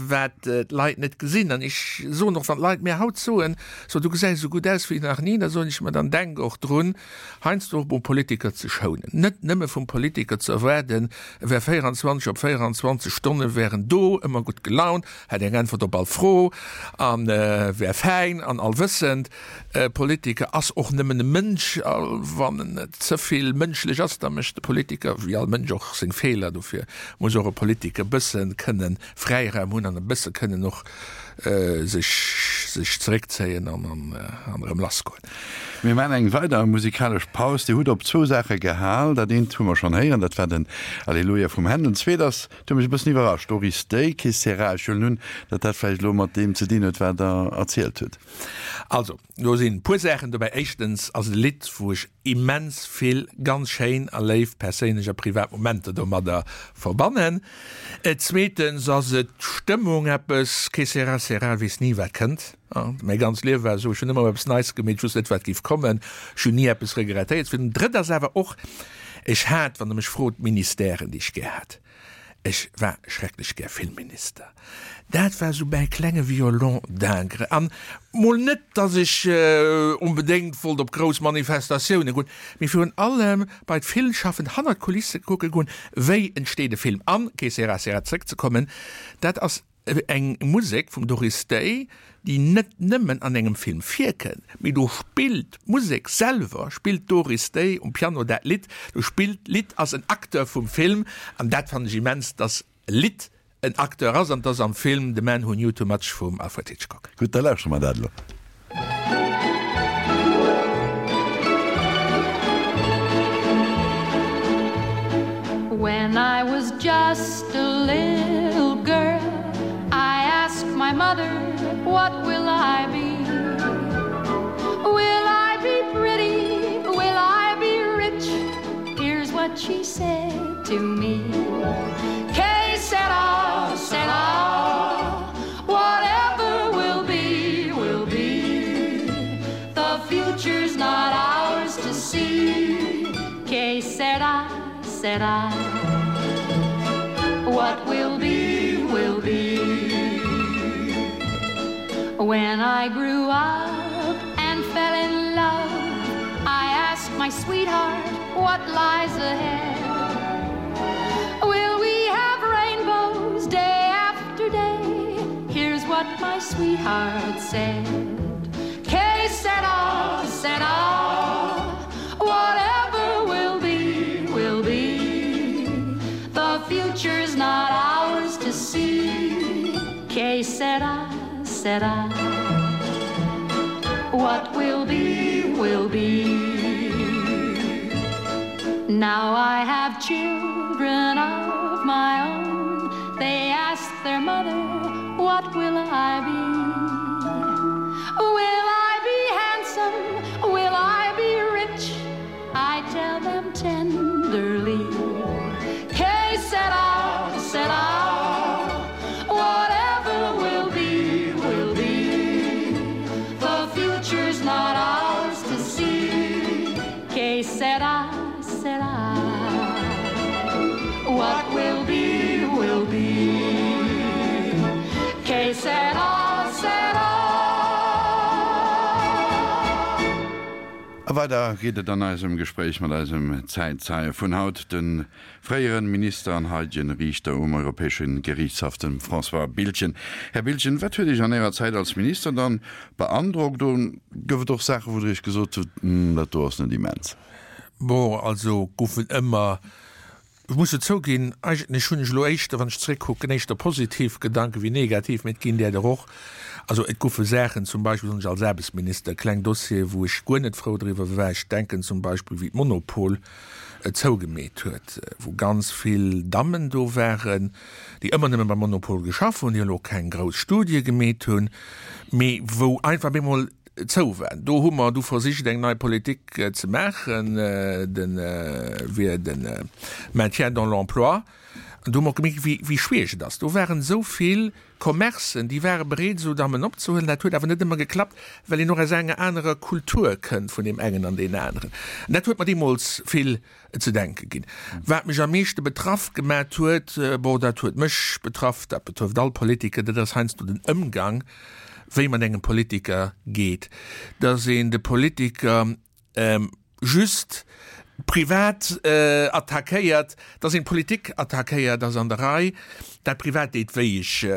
wat d'Leit net gesinn. An ech soen och, wann d'Leit mir haut soen, so du gesäis esou gutt aus wéi nach ni, da soen ech, ma dann denk och drun, heiansdo och mol Politiker ze schounen. Net nëmme vum Politiker ze erwaarden, e wär 24 op 24 Stonne wär en do, ëmmer gutt gelaunt, hätt eng Äntwert op all Fro a wär fäin an allwëssend. E Politiker ass och nëmmen e Mënsch, a wann en net ze vill mënschlech ass, da mécht de Politiker, wéi all Mënsch, och seng Feeler. Dofir muss och e Politiker e bësse kënne Fräiraum hunn an e bësse kënnen och sech sech zeréckzéien an an erëm lassgoen. Mir maachen eng weider musikalesch Paus. Dir hutt op zwou Saache gehal. Dat eent hu mer schonn héieren, dat war den Alleluia vum Händel. D'zweet ass, dat huet mech e bëssen iwwerrascht, Doris Day, Que sera? Ech huelen un, datt dat vläicht elo mat deem ze dinn huet, wat Der erzielt hutt. Also, do sinn e puer Saachen dobäi. Éischtens ass et e Lidd, wou ech immens vill ganz schéin a léif perséinlech a privat Momenter domadder verbannen. Zweetens ass et d'Stëmmung, eppes, que sera, sera, weess ni wat kënnt. Mäi ganz Liewe war esou, ech hunn ëmmer eppes Neits gemeet, ech wosst net wat géif kommen, ech hunn ni eppes regrettéiert. Fir den Drëtt ass awer och, ech hat, wann Der mech frot, Ministèren, déi ech gär hat. Ech war schrecklech gär Filmminister. Dat war sou mäi klenge Violon d'Ingres. An mol net, datt ech onbedéngt wollt op grouss Manifestatioune goen, mee virun allem bei d'Filmschaffend hannert d'Kulisse kucke goen, wéi entsteet e Film. An, que sera sera, zréckzekommen, dat ass Eng Musek vum Doris Day, déi net nëmmen an engem Film virkënnt, mee do spillt d'Musek selwer, spillt d'Doris Day um Piano dat Lidd, do spillt d'Lidd, ass en Acteur vum Film an dat fannen ech immens, dass e Lidd en Acteur ass an 't ass am Film The Man Who Knew Too Much vum Alfred Hitchcock. Gutt, da lauschtere mer dat elo. When I was just a little girl I asked my mother what will I be Will I be pretty will I be rich Here's what she said to me K sera sera Whatever will be, will be. The future's not ours to see. Que sera, sera. What will be, will be. When I grew up and fell in love, I asked my sweetheart what lies ahead. Will we have rainbows day after day? Here's what my sweetheart said. Que sera, sera. Whatever will be, will be. The future's not ours to see. Que sera, sera. What will be, will be. Now I have children of my own They ask their mother, what will I be? Will I be handsome? Will I be rich? I tell them tenderly K set out, set out Whatever will be, will be The future's not ours to see K said I, said I What will be, will be K said I, said I A weider geet et an eisem Gespréich mat eisem Zäitzeie vun haut, de fréiere Minister an haidegen Riichter um Europäesche Geriichtshaff, dem François Biltgen. Här Biltgen, wat huet Iech an Ärer Zäit als Minister dann beandrockt? Oder gouf et och Saachen, wou Der Iech gesot hutt, Hm, dat do ass net immens? Bon, also goufen ëmmer Ech muss jo zouginn, eigentlech hunn ech elo éischter, wann ech zeréckkucken, éischter positiv Gedanke wéi negativ, mee et ginn där der och. Also et goufe Saachen, zum Beispill soen ech als Aarbechtsminister, kleng Dossiere wou ech guer net frou driwwer war. Ech denken zum Beispill wéi d'Monopol et zougemeet huet, wou ganz vill Dammen do waren, déi ëmmer nëmme beim Monopol geschaff hunn, déi elo keng grouss Studie gemeet hunn, mee wou einfach op eemol zou war. Do hu mer du versicht eng nei Politik ze maachen, de wier de Maintien dans l'emploi. An do hu mer och gemierkt, wéi wéi schwiereg et ass. Do waren esou vill Commercen, déi ware bereet esou Dammen opzehuelen. Dat huet awer net ëmmer geklappt, well een och aus enger anerer Kultur kënnt vun deem engen an deen aneren. An dat huet mer deemools vill ze denke ginn. Wat mech am meeschte betraff gemat huet, bon, dat huet mech betraff, dat betrëfft all Politiker, dat ass heiansdo den Ëmgang, wéi mat engem Politiker geet, dass een de Politiker just privat attackéiert, dass een d'Politik attackéiert, ass an der Rei. Dat privat deet wéi. Ech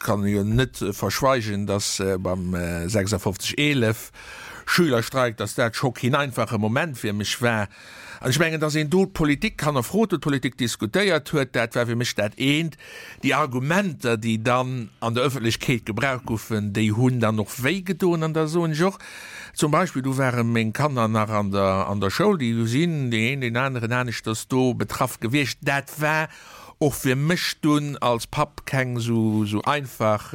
kann jo net verschweigen, dass beim 56 11 Schülerstreik, dass dat scho keen einfache Moment fir mech war. An ech mengen, dass een do d'Politik hannerfrot huet, d'Politik diskutéiert huet, dat war fir mech dat eent. Déi Argumenter, déi dann an der Öffentlechkeet gebraucht goufen, déi hunn dann och wéi gedoen. An da soen ech och, zum Beispill, do ware meng Kanner nach an der, an der Schoul, déi sinn deen een, deen aneren aneschters do betraff gewiescht. Dat war och fir mech dunn als Papp keng esou einfach,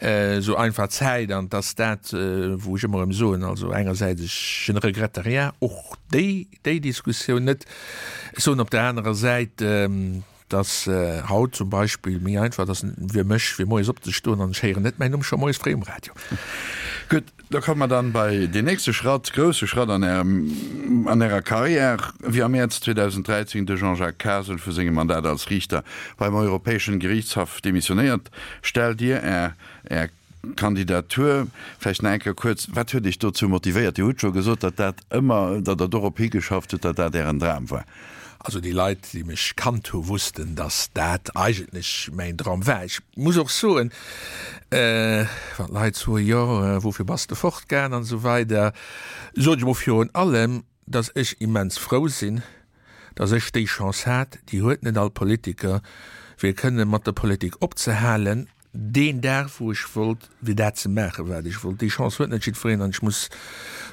esou einfach Zäit. An 't ass dat, wou ech ëmmer erëm soen, also engersäits, ech, je ne regrette rien, och déi, déi Diskussioun net. Ech soen op der anerer Säit, dass haut zum Beispill méi einfach ass fir mech, fir moies opzestoen an ech héieren net mäin Numm scho moies fréi um Radio. Gutt, da komme mer dann bei deen nächste Schratt, grousse Schratt an Ärem, an Ärer Carrière, wéi am Mäerz 2013 de Jean-Jacques Kasel vu sengem Mandat als Riichter beim Europäeschen Gerichtshaff demissionéiert, stellt Dir Är, Är Kandidatur. Vläicht nach eng Kéier kuerz, Wat huet Iech dozou motivéiert? Dir hutt scho gesot, datt dat ëmmer, datt Der dorop higeschafft hutt, datt dat Ären Dram war. Also déi Leit, déi mech kannt hu wussten, datt dat eigentlech mäin Dram war. Ech muss och soen, wann d'Leit soen, jo woufir bass de fortgaang an esou weider, soen ech emol virun allem, datt ech immens frou sinn, datt ech déi Chance hat, déi huet net all Politiker, fir kënne mat der Politik opzehalen. Deen Dag, wou ech wollt, fir dat ze maachen, wat ech wollt. Déi Chance huet net jiddwereen an ech muss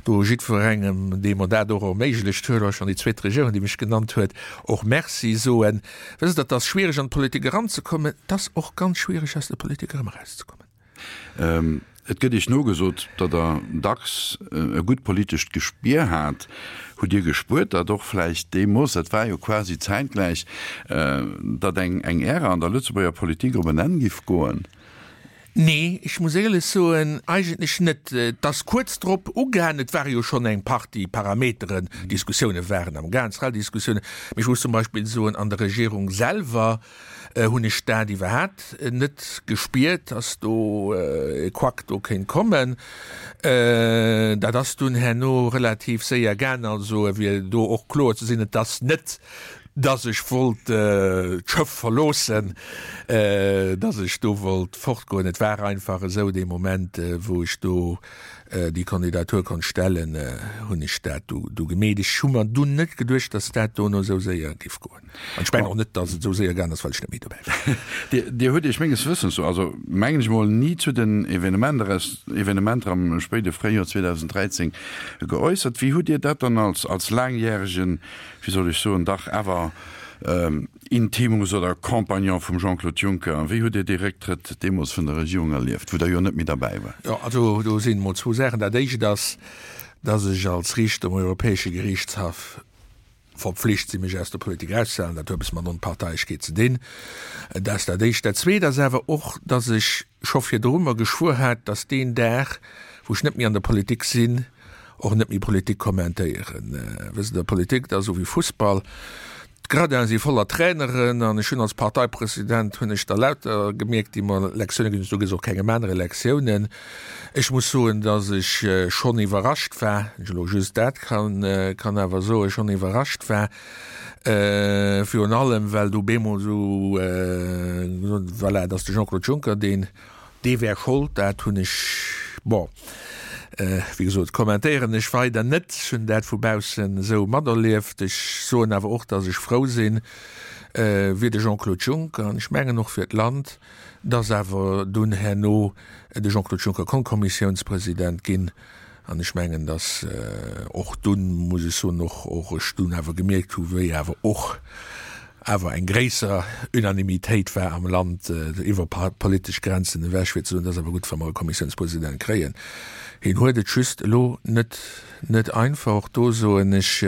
do jiddwerengem, dee mer dat och erméiglecht huet, och schonn déi zweet Regierung, déi mech genannt huet, och Merci soen. Wësst Der, et ass schwiereg an d'Politik eranzekommen, et ass och ganz schwiereg aus der Politik erëm erauszekommen. Et gëtt Iech nogesot, datt Der dacks e gutt politescht Gespier hat. Hutt Dir gespuert, datt och vläicht deemools, dat war jo quasi zäitgläich, datt eng eng Ära an der Lëtzebuerger Politik op en Enn giff goen? Nee, ech muss éierlech soen, eigentlech net. Et ass kuerz drop ugaangen, et ware jo schonn eng Partie Parameteren, Diskussioune waren am Gaang, Zrell-Diskussiounen, mee ech muss zum Beispill soen, an der Regierung selwer hunn ech dat iwwerhat net gespiert, dass do e Couac do kéint kommen. Dat ass dunn herno relativ séier gaang. Also fir do och kloer ze sinn, et ass net. Dass ech wollt d'Schëff verloossen, dass ech do wollt fortgoen. Et war einfach esou, dee Moment, wou ech do déi Kandidatur konnt stellen, hunn ech dat du gemeet. Ech hu mer dunn net geduecht, dass dat dono esou séier géif goen. An ech mengen och net, dass et esou séier gaangen ass, well ech net méi dobäi war. Dir hutt Iech menges Wëssens no, also mengen ech mol, ni zu den Evenementer am spéide Fréijoer 2013 geäussert. Wéi hutt Dir dat dann als laangjäregen wéi soll ech soen, dach awer Intimus oder Compagnon vum Jean-Claude Juncker. Wéi hutt Dir dee Récktrëtt deemools vun der Regierung erlieft, wou Der jo net méi derbäi waart? Jo, also do sinn emol zwou Saachen. Dat Éischt ass, dass ech als Riichter um Europäesche Geriichtshaff verpflicht sinn, mech aus der Politik erauszehalen. Dat huet eppes mat Onparteiechkeet ze dinn. Dat ass dat Éischt. Dat Zweet ass awer och, dass ech scho virdru mer geschwuer hat, dass deen Dag, wou ech net méi an der Politik sinn, och net méi Politik kommentéieren. Wësst Der, Politik, dat ass esou wéi Fussball, d'Gradinen si voller Traineren an ech hunn als Parteipresident hunn ech der lauter gemierkt, déi mer Lektiounen ginn hunn. Du gëss och kengem anere Lektiounen. Ech muss soen, dass ech schonn iwwerrascht war, wann ech elo just dat kann, kann awer soen, schonn iwwerrascht war, virun allem well du bemol esou, voilà, dass de Jean-Claude Juncker deen, Dee wär Schold, dat hunn ech, bon, wéi gesot, kommentéieren ech weider net. Ech hunn dat vu baussen esou materlieft. Ech soen awer och, datt ech frou sinn, fir de Jean-Claude Juncker an ech mengen och fir d'Land, datt awer dunn herno de Jean-Claude Juncker konnt Kommissiounspresident ginn. An ech mengen, datt och dunn, muss ech soen, och och ech dunn awer gemierkt hu wéi awer och awer eng gréisser Unanimitéit war am Land iwwer politesch Grenzen ewech, fir ze soen, et ass awer gutt, wa mer e Kommissiounspresident kréien. Hien huet et just elo net net einfach. Och do soen ech,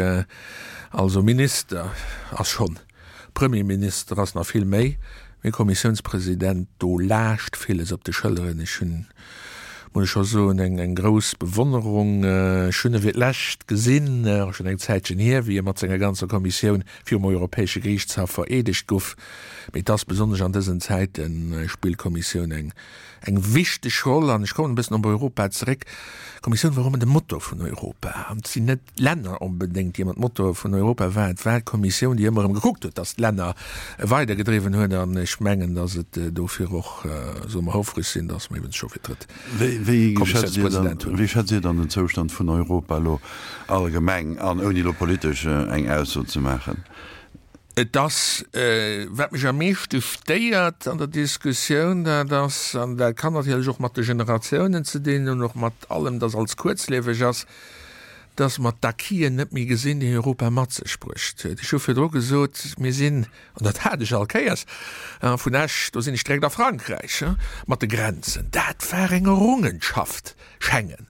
also Minister ass schonn Premierminister ass nach vill méi, mee Kommissiounspresident, do laascht villes op de Schëlleren. Ech hunn, muss ech scho soen, eng eng grouss Bewonnerung. Ech hunn e fir d'lescht gesinn, och schonn eng Zäitchen hier, wéi e mat senger ganzer Kommissioun virum Europäesche Geriichtshaff vereedegt guff. Mee et ass besonnesch an dësen Zäiten, spillt d'Kommissioun eng eng wichteg Roll. An ech kommen e bëssen op Europa zeréck. D'Kommissioun war ëmmer de Motor vun Europa an et sinn net d'Länner onbedéngt, déi ëmmer d'Motore vun Europa waren. Et war d'Kommissioun, déi ëmmer erëm gekuckt huet, datt d'Länner weidergedriwwen huet. An ech mengen, datt et dofir och, solle mer houfreg sinn, datt mer iwwens scho fir d'drëtt Kommissiounspresident hunn. Wéi schätzt Dir dann den Zoustand vun Europa elo allgemeng an, ouni elo politesch eng Ausso ze maachen? Et ass, wat mech am meeschte stéiert an der Diskussioun, dat ass, an dat kann natierlech och mat de Generatiounen ze dinn hunn, och mat allem, dass alles kuerzlieweg ass, dass mer d'Acquisen net méi gesinn, déi Europa mat sech bruecht huet. Ech hu virdru gesot, mir sinn, an dat hat ech all Kéiers, vun Esch, do sinn ech direkt a Frankräich, mat de Grenzen, dat war eng Errungenschaft. Schengen,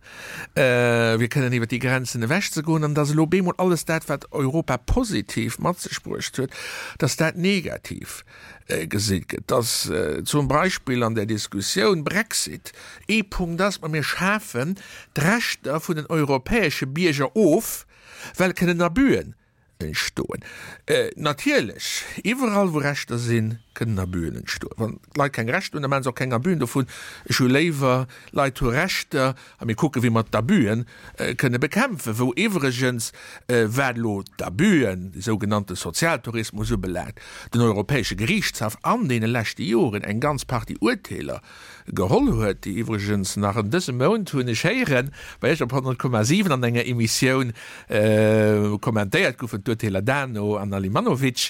fir kënnen iwwer déi Grenzen ewech ze goen, an dass elo bemol alles dat, wat Europa positiv mat sech bruecht huet, dass dat negativ gesi gëtt, dass zum Beispill an der Diskussioun Brexit ee Punkt ass, ma mir schafen d'Rechter vun den europäesche Bierger of, well kënnen Abüen entstoen. Natierlech, iwwerall wou Rechter sinn, kënnen Abüen entstoen. Wann d'Leit keng Rechter hunn, da maache se och keng Abüen dovun. Ech hu léiwer, d'Leit hu Rechter a mir kucken, wéi mer d'Abüen kënne bekämpfen. Wou iwwregens, wat elo d'Abüen, de sougenannte Sozialtourismus ubelaangt, den Europäesche Geriichtshaff an deene leschte Joren eng ganz Partie Urteeler geholl huet, déi iwwregens nach an dësem Mount, hunn ech héieren, bei Iech op 100,7 an enger Emissioun kommentéiert goufen, d'Urteeler Dano an Alimanovic.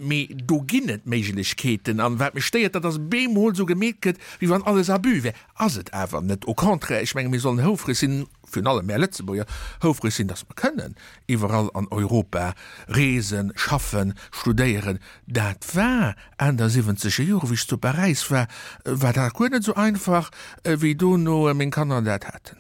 Mee do ginn et Méiglechkeeten. An wat mech stéiert, dat ass bemol esou gemeet gëtt, wéi wann alles Abus wär. Ass et awer net. Au contraire, ech menge mir sollen houfreg sinn, virun allem mär Lëtzebuerger, houfreg sinn, datt mer kënnen iwwerall an Europa reesen, schaffen, studéieren. Dat war Enn der siwwenzeger Jore, wéi ech zu Paräis war, war dat guer net esou einfach, wéi dono meng Kanner dat haten.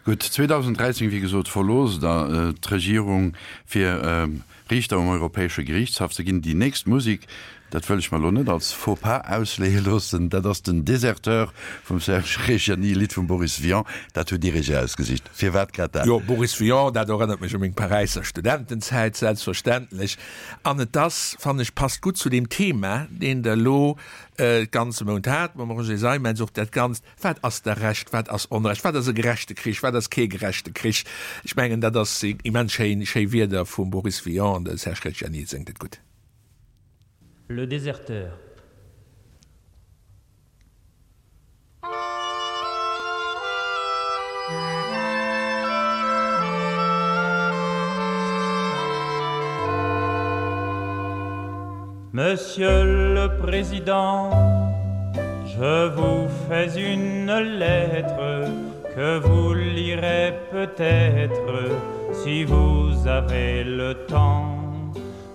Gutt, 2013, wéi gesot, verloosst Der d'Regierung, fir Riichter um Europäesche Geriichtshaff ze ginn. Déi nächst Musek, Dat wëll ech mer elo net als Faux pas ausleeë loossen. Dat ass den Déserteur vum Serge Reggiani, e Lidd vum Boris Vian. Dat hutt Dir Iech erausgesicht. Firwat grad dat? Jo, Boris Vian, dat erënnert mech u meng Paräisser Studentenzäit, selbstverständlech. An et ass, fannen ech, passt gutt zu deem Thema, deen Der elo de ganze Mount hat mam Roger Seimetz, och dat Ganzt, Wat ass da Recht, wat ass Onrecht, wat ass e gerechte Krich, wat ass kee gerechte Krich? Ech mengen, dat ass immens schéin, schéi Wierder vum Boris Vian an de Serge Reggiani séngt et gutt. Le déserteur. Monsieur le Président, je vous fais une lettre que vous lirez peut-être si vous avez le temps.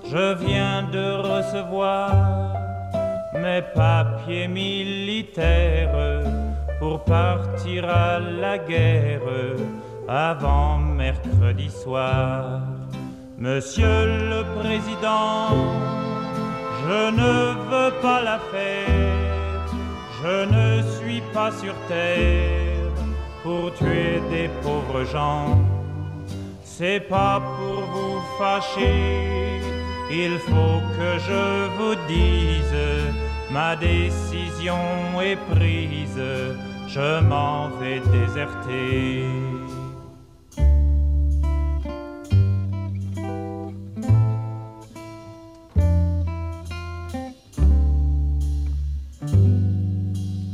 Je viens de recevoir mes papiers militaires pour partir à la guerre avant mercredi soir. Monsieur le Président, je ne veux pas la faire, je ne suis pas sur terre pour tuer des pauvres gens. C'est pas pour vous fâcher, il faut que je vous dise, ma décision est prise, je m'en vais déserter.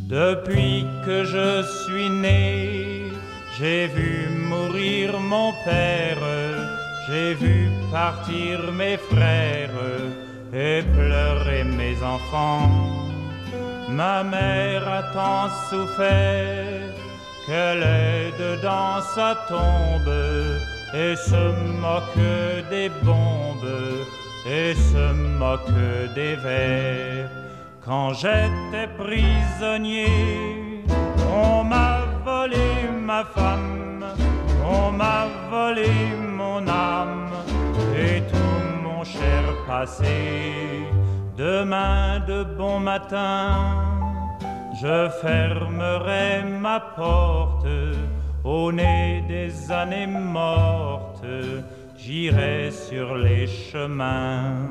Depuis que je suis né, j'ai vu mourir mon père, j'ai vu partir mes frères et pleurer mes enfants. Ma mère a tant souffert qu'elle est dedans sa tombe et se moque des bombes et se moque des vers. Quand j'étais prisonnier, on m'a volé ma femme, on m'a volé mon âme et tout mon cher passé. Demain de bon matin, je fermerai ma porte au nez des années mortes, j'irai sur les chemins.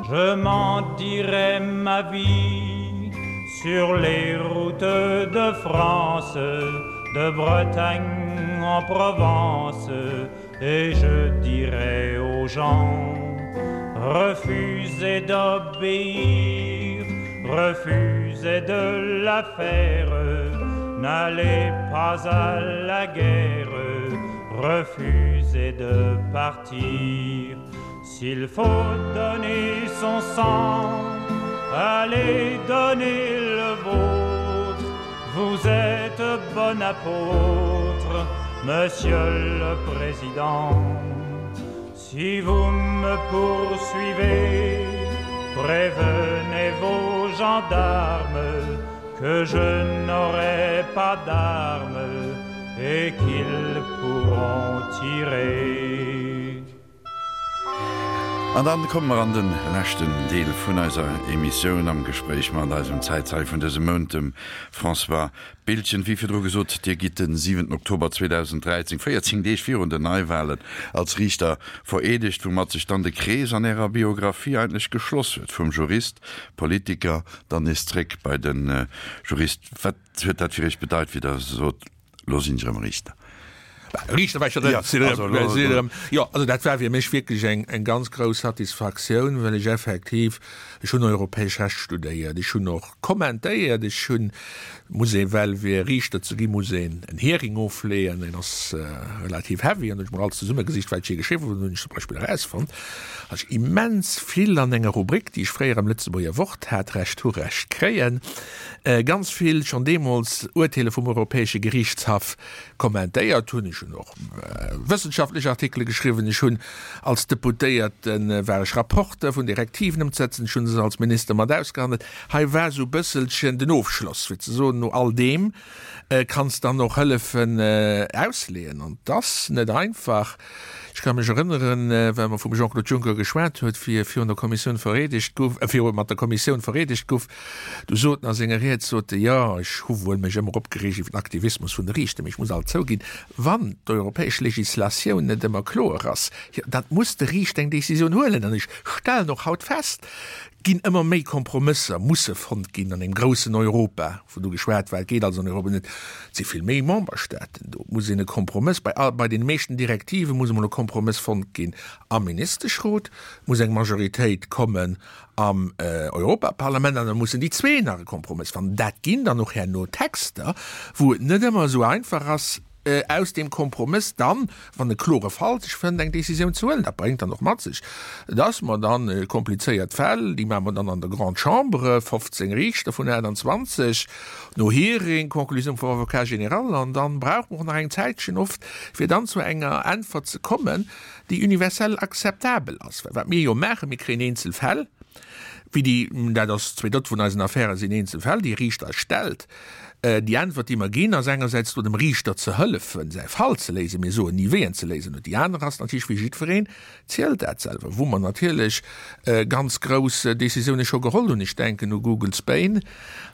Je m'en dirai ma vie sur les routes de France, de Bretagne en Provence, et je dirai aux gens refusez d'obéir, refusez de la faire, n'allez pas à la guerre, refusez de partir. S'il faut donner son sang, allez donner le vôtre, vous êtes bon apôtre, Monsieur le Président. Si vous me poursuivez, prévenez vos gendarmes que je n'aurai pas d'armes et qu'ils pourront tirer. An dann komme mer an de leschten Deel vun eiser Emissioun am Gespréich mat eisem Zäitzeie vun dësem Mount, dem François Biltgen. Wéi virdru gesot, Dir gitt den 7 Oktober 2013, 14 Deeg virun den Neiwahlen, als Riichter vereedegt, woumat sech dann de Krees an Ärer Biographie eigentlech geschloss huet, vum Jurist, Politiker, dann nees zréck bei de Jurist. Wat huet dat fir Iech bedeit, wéi Der sot, Lo sinn ech erëm Riichter. Riichter war ech jo net. Jo, also dat war fir mech wierklech eng eng ganz grouss Satisfaktioun, well ech effektiv, ech hunn europäesch Recht studéiert, ech hunn och kommentéiert, ech hunn, muss ee well fir Riichter ze ginn, muss een en Hearing ofleeën, deen ass relativ heavy, an hunn ech mol alles zesummegesicht, wat ech jee geschriwwen hunn, hunn ech zum Beispill erausfonnt, datt ech immens vill an enger Rubrik, déi ech fréier am Lëtzebuerger Wort hat, Recht hu Recht kréien, ganz vill schonn deemools Urteeler vum Europäesche Geriichtshaff kommentéiert hunn. hunn och wëssenschaftlech Artikele geschriwwen, ech hunn als Deputéierte war ech Rapporteur vun Direktiven ëmzesetzen, ech hu se als Minister mat ausgehandelt. Hei war esou e bësselchen den Ofschloss, fir ze soen, no all deem kanns dann och hëllefen ausleeën. An 't ass net einfach. Ech ka mech erënneren, well mer vum Jean-Claude Juncker geschwat huet, wéi e virun der Kommissioun vereedegt guff, viru mat der Kommissioun vereedegt guff, du sot en a senger Ried, sot e, jo, ech hu wuel mech ëmmer opgereegt iwwer den Aktivismus vun de Riichter, mee ech muss alt zouginn, wann d'europäesch Legislatioun net ëmmer kloer ass, jo, dat muss de Riichter eng Décisioun huelen. An ech stellen och haut fest, ginn ëmmer méi Kompromësser musse fonnt ginn an engem groussen Europa, wou do geschwat war, et geet also an Europa net, et si vill méi Memberstaaten do, et muss een e Kompromëss, bei all, bei deene meeschten Direktive muss emol e Kompromëss fonnt ginn am Ministeschrot, et muss eng Majoritéit kommen am Europaparlament an da mussen déi zwee nach e Kompromëss fannen. Dat ginn dann och herno Texter, wou et net ëmmer esou einfach ass, aus deem Kompromëss dann, wann e klore Fall sech fënnt, eng Décisioun ze huelen. Dat bréngt dann och mat sech, dass mer dann komplizéiert Fäll, déi maache mer dann an der Grande Chambre, 15 Riichter vun 28, no Hearing, Conclusioun vum Avocat général, an dann brauche mer och nach eng Zäitchen oft, fir dann zu enger Äntwert ze kommen, déi universell akzeptabel ass. Well wat mir jo maachen, mir kréien eenzel Fäll, wéi déi, dat ass 2/3 vun eisen Affäre sinn eenzel Fäll, déi e Riichter eis stellt, Déi Äntwert, déi mer ginn, ass engersäits do dem Riichter ze hëllefen, säi Fall ze léisen, mir soen ni wéi en ze léisen huet. Déi aner ass natierlech, wéi jiddwereen zielt dat selwer, wou mer natierlech ganz grouss Décisioune scho geholl hunn, ech denken u Google Spain,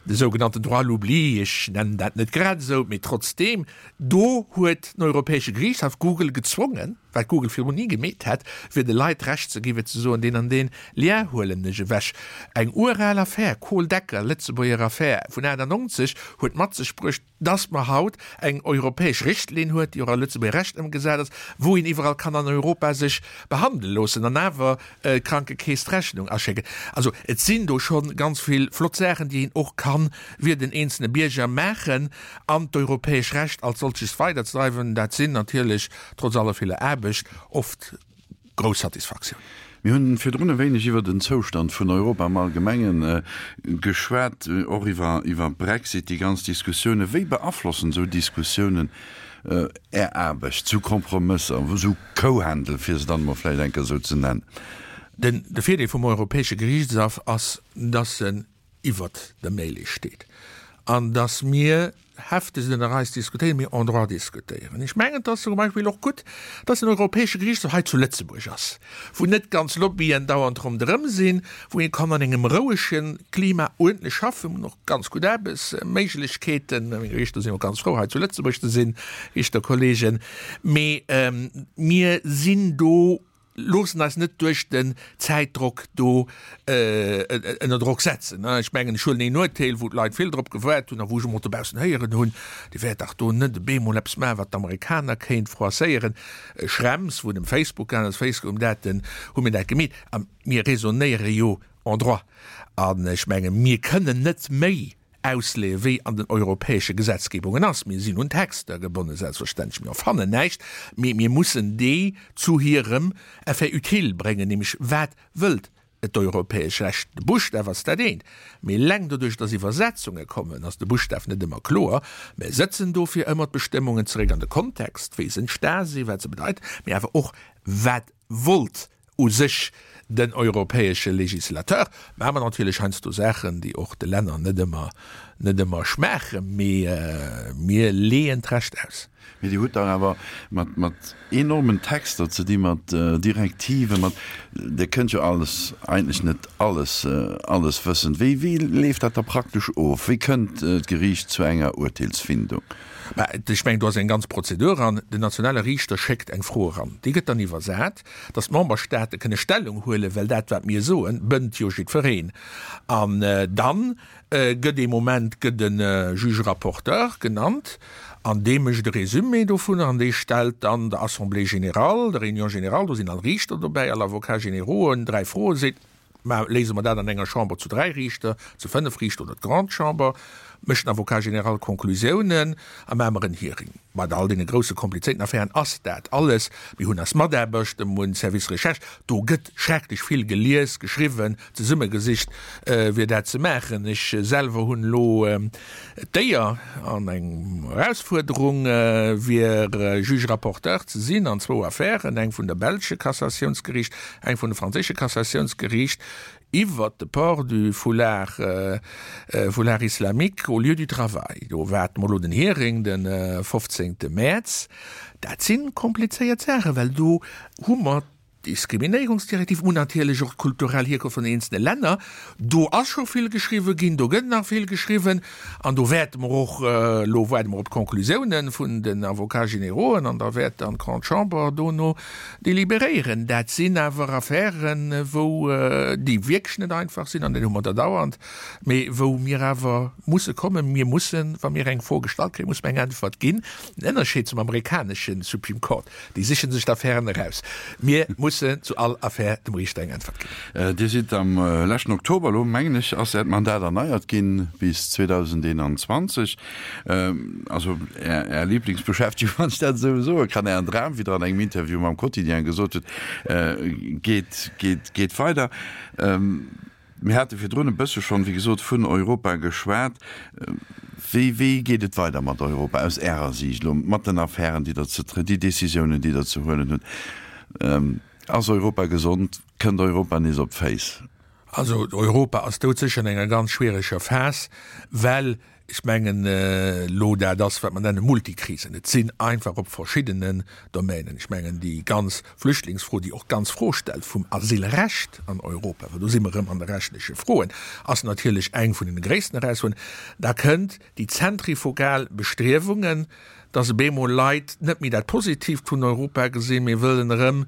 de sougenannten Droit à l'oubli, ech nennen dat net grad esou, mee trotzdeem, do huet den Europäesche Geriichtshaff Google gezwongen, wat Google virdrun ni gemeet hätt, fir de Leit d'Recht ze gi fir ze soen, deen an deen Lien huelen ech ewech. Eng ural Affär, Kohl-Decker, Lëtzebuerger Affär vun 98, huet mat sech bruecht, dass mer haut eng europäesch Richtlinn huet, déi och a Lëtzebuerger Recht ëmgesat ass, wou een iwwerall kann an Europa sech behandele loossen an awer d'Krankekeess d'Rechnung aschécken. Also et sinn do scho ganz vill flott Saachen, déi een och kann fir den eenzelne Bierger maachen an d'europäesch Recht als solches weiderzedreiwen. Dat sinn natierlech trotz aller viller Aarbecht oft grouss Satisfaktioun. Mir hunn virdrun e wéineg iwwer den Zoustand vun Europa am Allgemengen geschwat, och iwwer iwwer Brexit, déi ganz Diskussiounen. Wéi beaflossen esou Diskussiounen Är Aarbecht, esou Kompromësser, esou Kouhändel, fir se dann emol vläicht eng Kéier esou ze nennen? Den de Virdeel vum Europäesche Gerichtshaff ass, dass en iwwert der Mêlée steet an dass mir heftegst ënner eis diskutéieren, mir en droit diskutéieren. Ech mengen, et ass zum Beispill och gutt, dass den Europäesche Gerichtshof hei zu Lëtzebuerg ass, wou net ganz Lobbyen dauernd ronderëm sinn, wou ee kann an engem rouege Klima uerdentlech schaffen. Mir hunn och ganz gutt Aarbechtsméiglechkeeten. Meng Riichter sinn och ganz frou, hei zu Lëtzebuerg ze sinn, Riichterkollegen. Mee mir sinn do Loossen eis net duerch den Zäitdrock do ënner Drock setzen. Ech mengen, ech huelen een Urteel, wou d'Leit vill drop gewaart hunn a wou ech emol dobaussen héieren hunn, Dir wäert dach do net e beemol eppes maachen, wat d'Amerikaner kéint froisséieren. Schrems, wou et ëm Facebook gaangen ass, Facebook ëm dat, hu mir dat gemeet. A mir raisonnéiere jo en droit. An ech menge mir kënnen net méi ausleeën, wéi an den europäesche Gesetzgebungen ass. Mir sinn un Texter gebonnen, selbstverständlech, mir erfannen näischt, mee mir mussen déi zu hirem Effet utile bréngen, nämlech wat wëllt d'europäesch Recht. De Buschtaf ass dat eent, mee eleng doduerch, dass Iwwersetzunge kommen, ass de Buschtaf net ëmmer kloer. Mir sëtzen dofir ëmmer d'Bestëmmungen zeréck an de Kontext, wéi se entsta sinn, wat se bedeiten, mee awer och wat wollt u sech den europäesche Législateur. Maache mer natierlech heiansdo Saachen, déi och de Länner net ëmmer, net ëmmer schmaachen, mee mir leeën d'Recht aus. Mee Dir hutt dach awer mat, mat enormen Texter ze di, mat Direktiven, mat, Dir kënnt jo alles, eigentlech net alles, alles wëssen. Wéi, wéi leeft dat da praktesch of? Wéi kënnt d'Geriicht zu enger Urteelsfindung? Mä ech mengen, do ass eng ganz Prozedur an. Den nationale Riichter schéckt eng Fro eran, déi gëtt dann iwwersat, dass d'Memberstaate kënne Stellung huelen, well dat, wat mir soen, bënnt jo jiddwereen. An dann gëtt ee Moment gëtt e Juge rapporteur genannt an dee mécht e Résumé dovunner an dee stellt dann der Assemblée générale, der Réunion générale, do sinn all Riichter dobäi, all Avocats générauxen, dräi Froen, seet, Mä léise mer dat an enger Chamber zu dräi Riichter, zu fënnef Riichter oder d'Grande Chamber? mécht den Avocat général Konklusiounen a maache mer en Hearing. Bei all deene grousse komplizéierten Affären ass dat alles. Mir hunn eis Mataarbechter, mir hunn Service Recherche, do gëtt schrecklech vill gelies, geschriwwen, zesummegesicht, fir dat ze maachen. Ech selwer hunn elo d'Éier an eng Erausfuerderung, fir Juge rapporteur ze sinn an zwou Affären, eng vun der belsche Cassatiounsgeriicht, eng vun de franséische Cassatiounsgeriicht. Iwwert de Port du foulard, foulard islamique au lieu du travail. Do waarde mer elo den Hearing de 15 Mäerz. Dat si komplizéiert Saachen, well do hu mer d'Diskriminéierungsdirektiv, mer hunn natierlech och d'kulturell Hierkonft vun den eenzelne Länner. Do ass scho vill geschriwwen ginn, do gëtt nach vill geschriwwen an do wäerte mer och, elo waarde mer op d'Conclusiounen vun den Avocats générauxen an da wäert dann d'Grande Chambre dono Deliberéieren. Dat sinn awer Affären, wou, déi wierklech net einfach sinn, an dat hu mer der dauernd, mee wou mir awer musse kommen. Mir mussen, wa mir eng Fro gestallt kréien, musse mir eng Äntwert ginn. Den Ënnerscheed zum amerikanesche Supreme Court, déi siche sech d'Affären eraus. Mir mussen zu all Affär dem Riichter eng Äntwert ginn. Dir sidd am leschten Oktober, elo mengen ech, ass Äert Mandat erneiert ginn bis 2021. Also Är Lieblingsbeschäftegung, wann ech dat esou soe kann, Ären Dram, wéi Der an engem Interview mam Quotidien gesot hutt, geet, geet, geet weider. Mir hate virdrun e bësse schonn, wéi gesot, vun Europa geschwat. Wéi, wéi geet et weider mat Europa aus Ärer Siicht elo, mat den Affären, déi Der ze, déi Décisiounen, déi Der ze huelen hutt? Ass Europa gesond? Kënnt Europa nees op d'Féiss? Also Europa ass doudsécher an enger ganz schwiereger Phas, well ech mengen elo dat ass, wat mer nenne Multikrisen. Et sinn einfach op verschiddenen Domänen, ech mengen déi ganz Flüchtlingsfro, déi och d'ganz Fro stellt vum Asylrecht an Europa, well do si mer erëm an de rechtleche Froen, ass natierlech eng vun den gréissten Erausfuerderungen. Da kënnt déi zentrifugal Bestriewungen, dass op eemol Leit net méi dat Positiivt vun Europa gesinn, mee wëllen erëm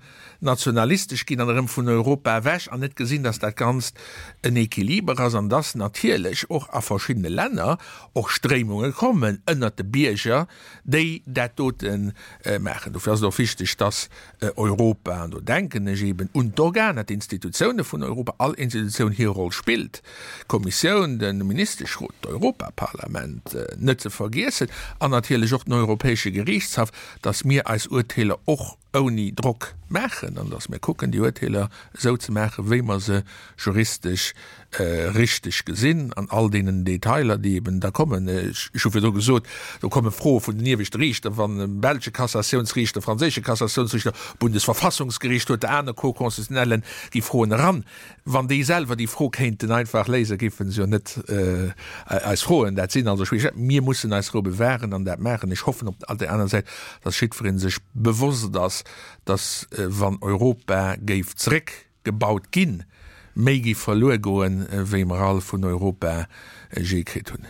nationalistesch ginn an erëm vun Europa ewech an net gesinn, dass dat Ganzt en Equiliber ass an dass natierlech och a verschiddene Länner och Stréimunge kommen ënnert de Bierger, déi dat dote maachen. Dofir ass et och wichteg, dass Europa, an do denken ech eben un d'Organer, d'Institutioune vun Europa, all Institutioun hir Roll spillt, d'Kommissioun, de Ministeschrot, d'Europaparlament net ze vergiessen an natierlech och den Europäesche Geriichtshaff, dass mir eis Urteeler och ouni Drock maachen an dass mir kucken, déi Urteeler esou ze maachen, wéi mer se juristesch richteg gesinn, an all deenen Detailer, déi eben da kommen. Ech hu virdru gesot, do komme Froe vun den ieweschte Riichter, wann e belsche Cassatiounsriichter, franséische Cassatiounsriichter, Bundesverfassungsgericht huet, aner Cour-constitutionnellen, gi Froen eran. Wann déi selwer déi Fro kéinten einfach léisen, géife se jo net eis froen. Dat sinn also schwiereg. Mir mussen eis Rou bewahren an dat maachen. Ech hoffen op der aner Säit, dass jiddweree sech bewosst ass, dass, wann Europa géif zeréckgebaut ginn, méi géif verluer goen, wéi mer all vun Europa jee kritt hunn.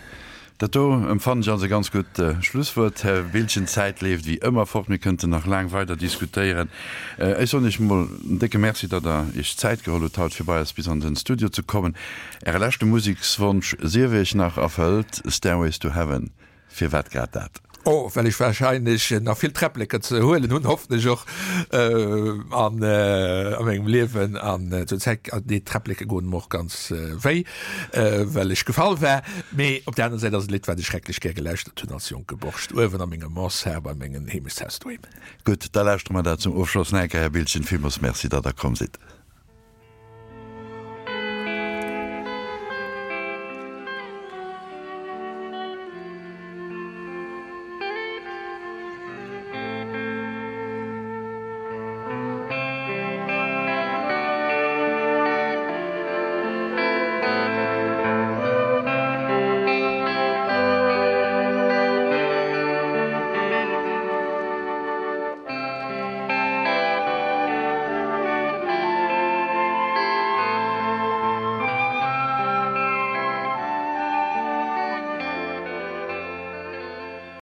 Dat do empfannen ech als e ganz gutt Schlusswuert, Här Biltgen. D'Zäit leeft wéi ëmmer fort. Mir kënnten nach laang weider diskutéieren. Ech soen Iech emol en décke Merci, datt Der Iech d'Zäit geholl hutt, haut fir bei eis bis an den Studio ze kommen. Äre leschte Musekswonsch sief Iech nach erfëllt, Stairways to Heaven. Firwat grad dat? Oh, well ech wahrscheinlech nach vill Träppleker ze huelen hunn, hoffen ech och, an a mengem Liewen. An zur Zäit, déi Träppleke goen mer och ganz wéi, well ech gefall war. Mee op der aner Säit ass et e Lidd, wat ech schrecklech gär gelauschtert hunn als jonke Borscht, uewen a menger Mansard bei mengen Heemechtshaus doheem. Gutt, da lauschtere mer dat zum Ofschloss nach eng Kéier, Här Biltgen. Villmools Merci, datt Der komm sidd.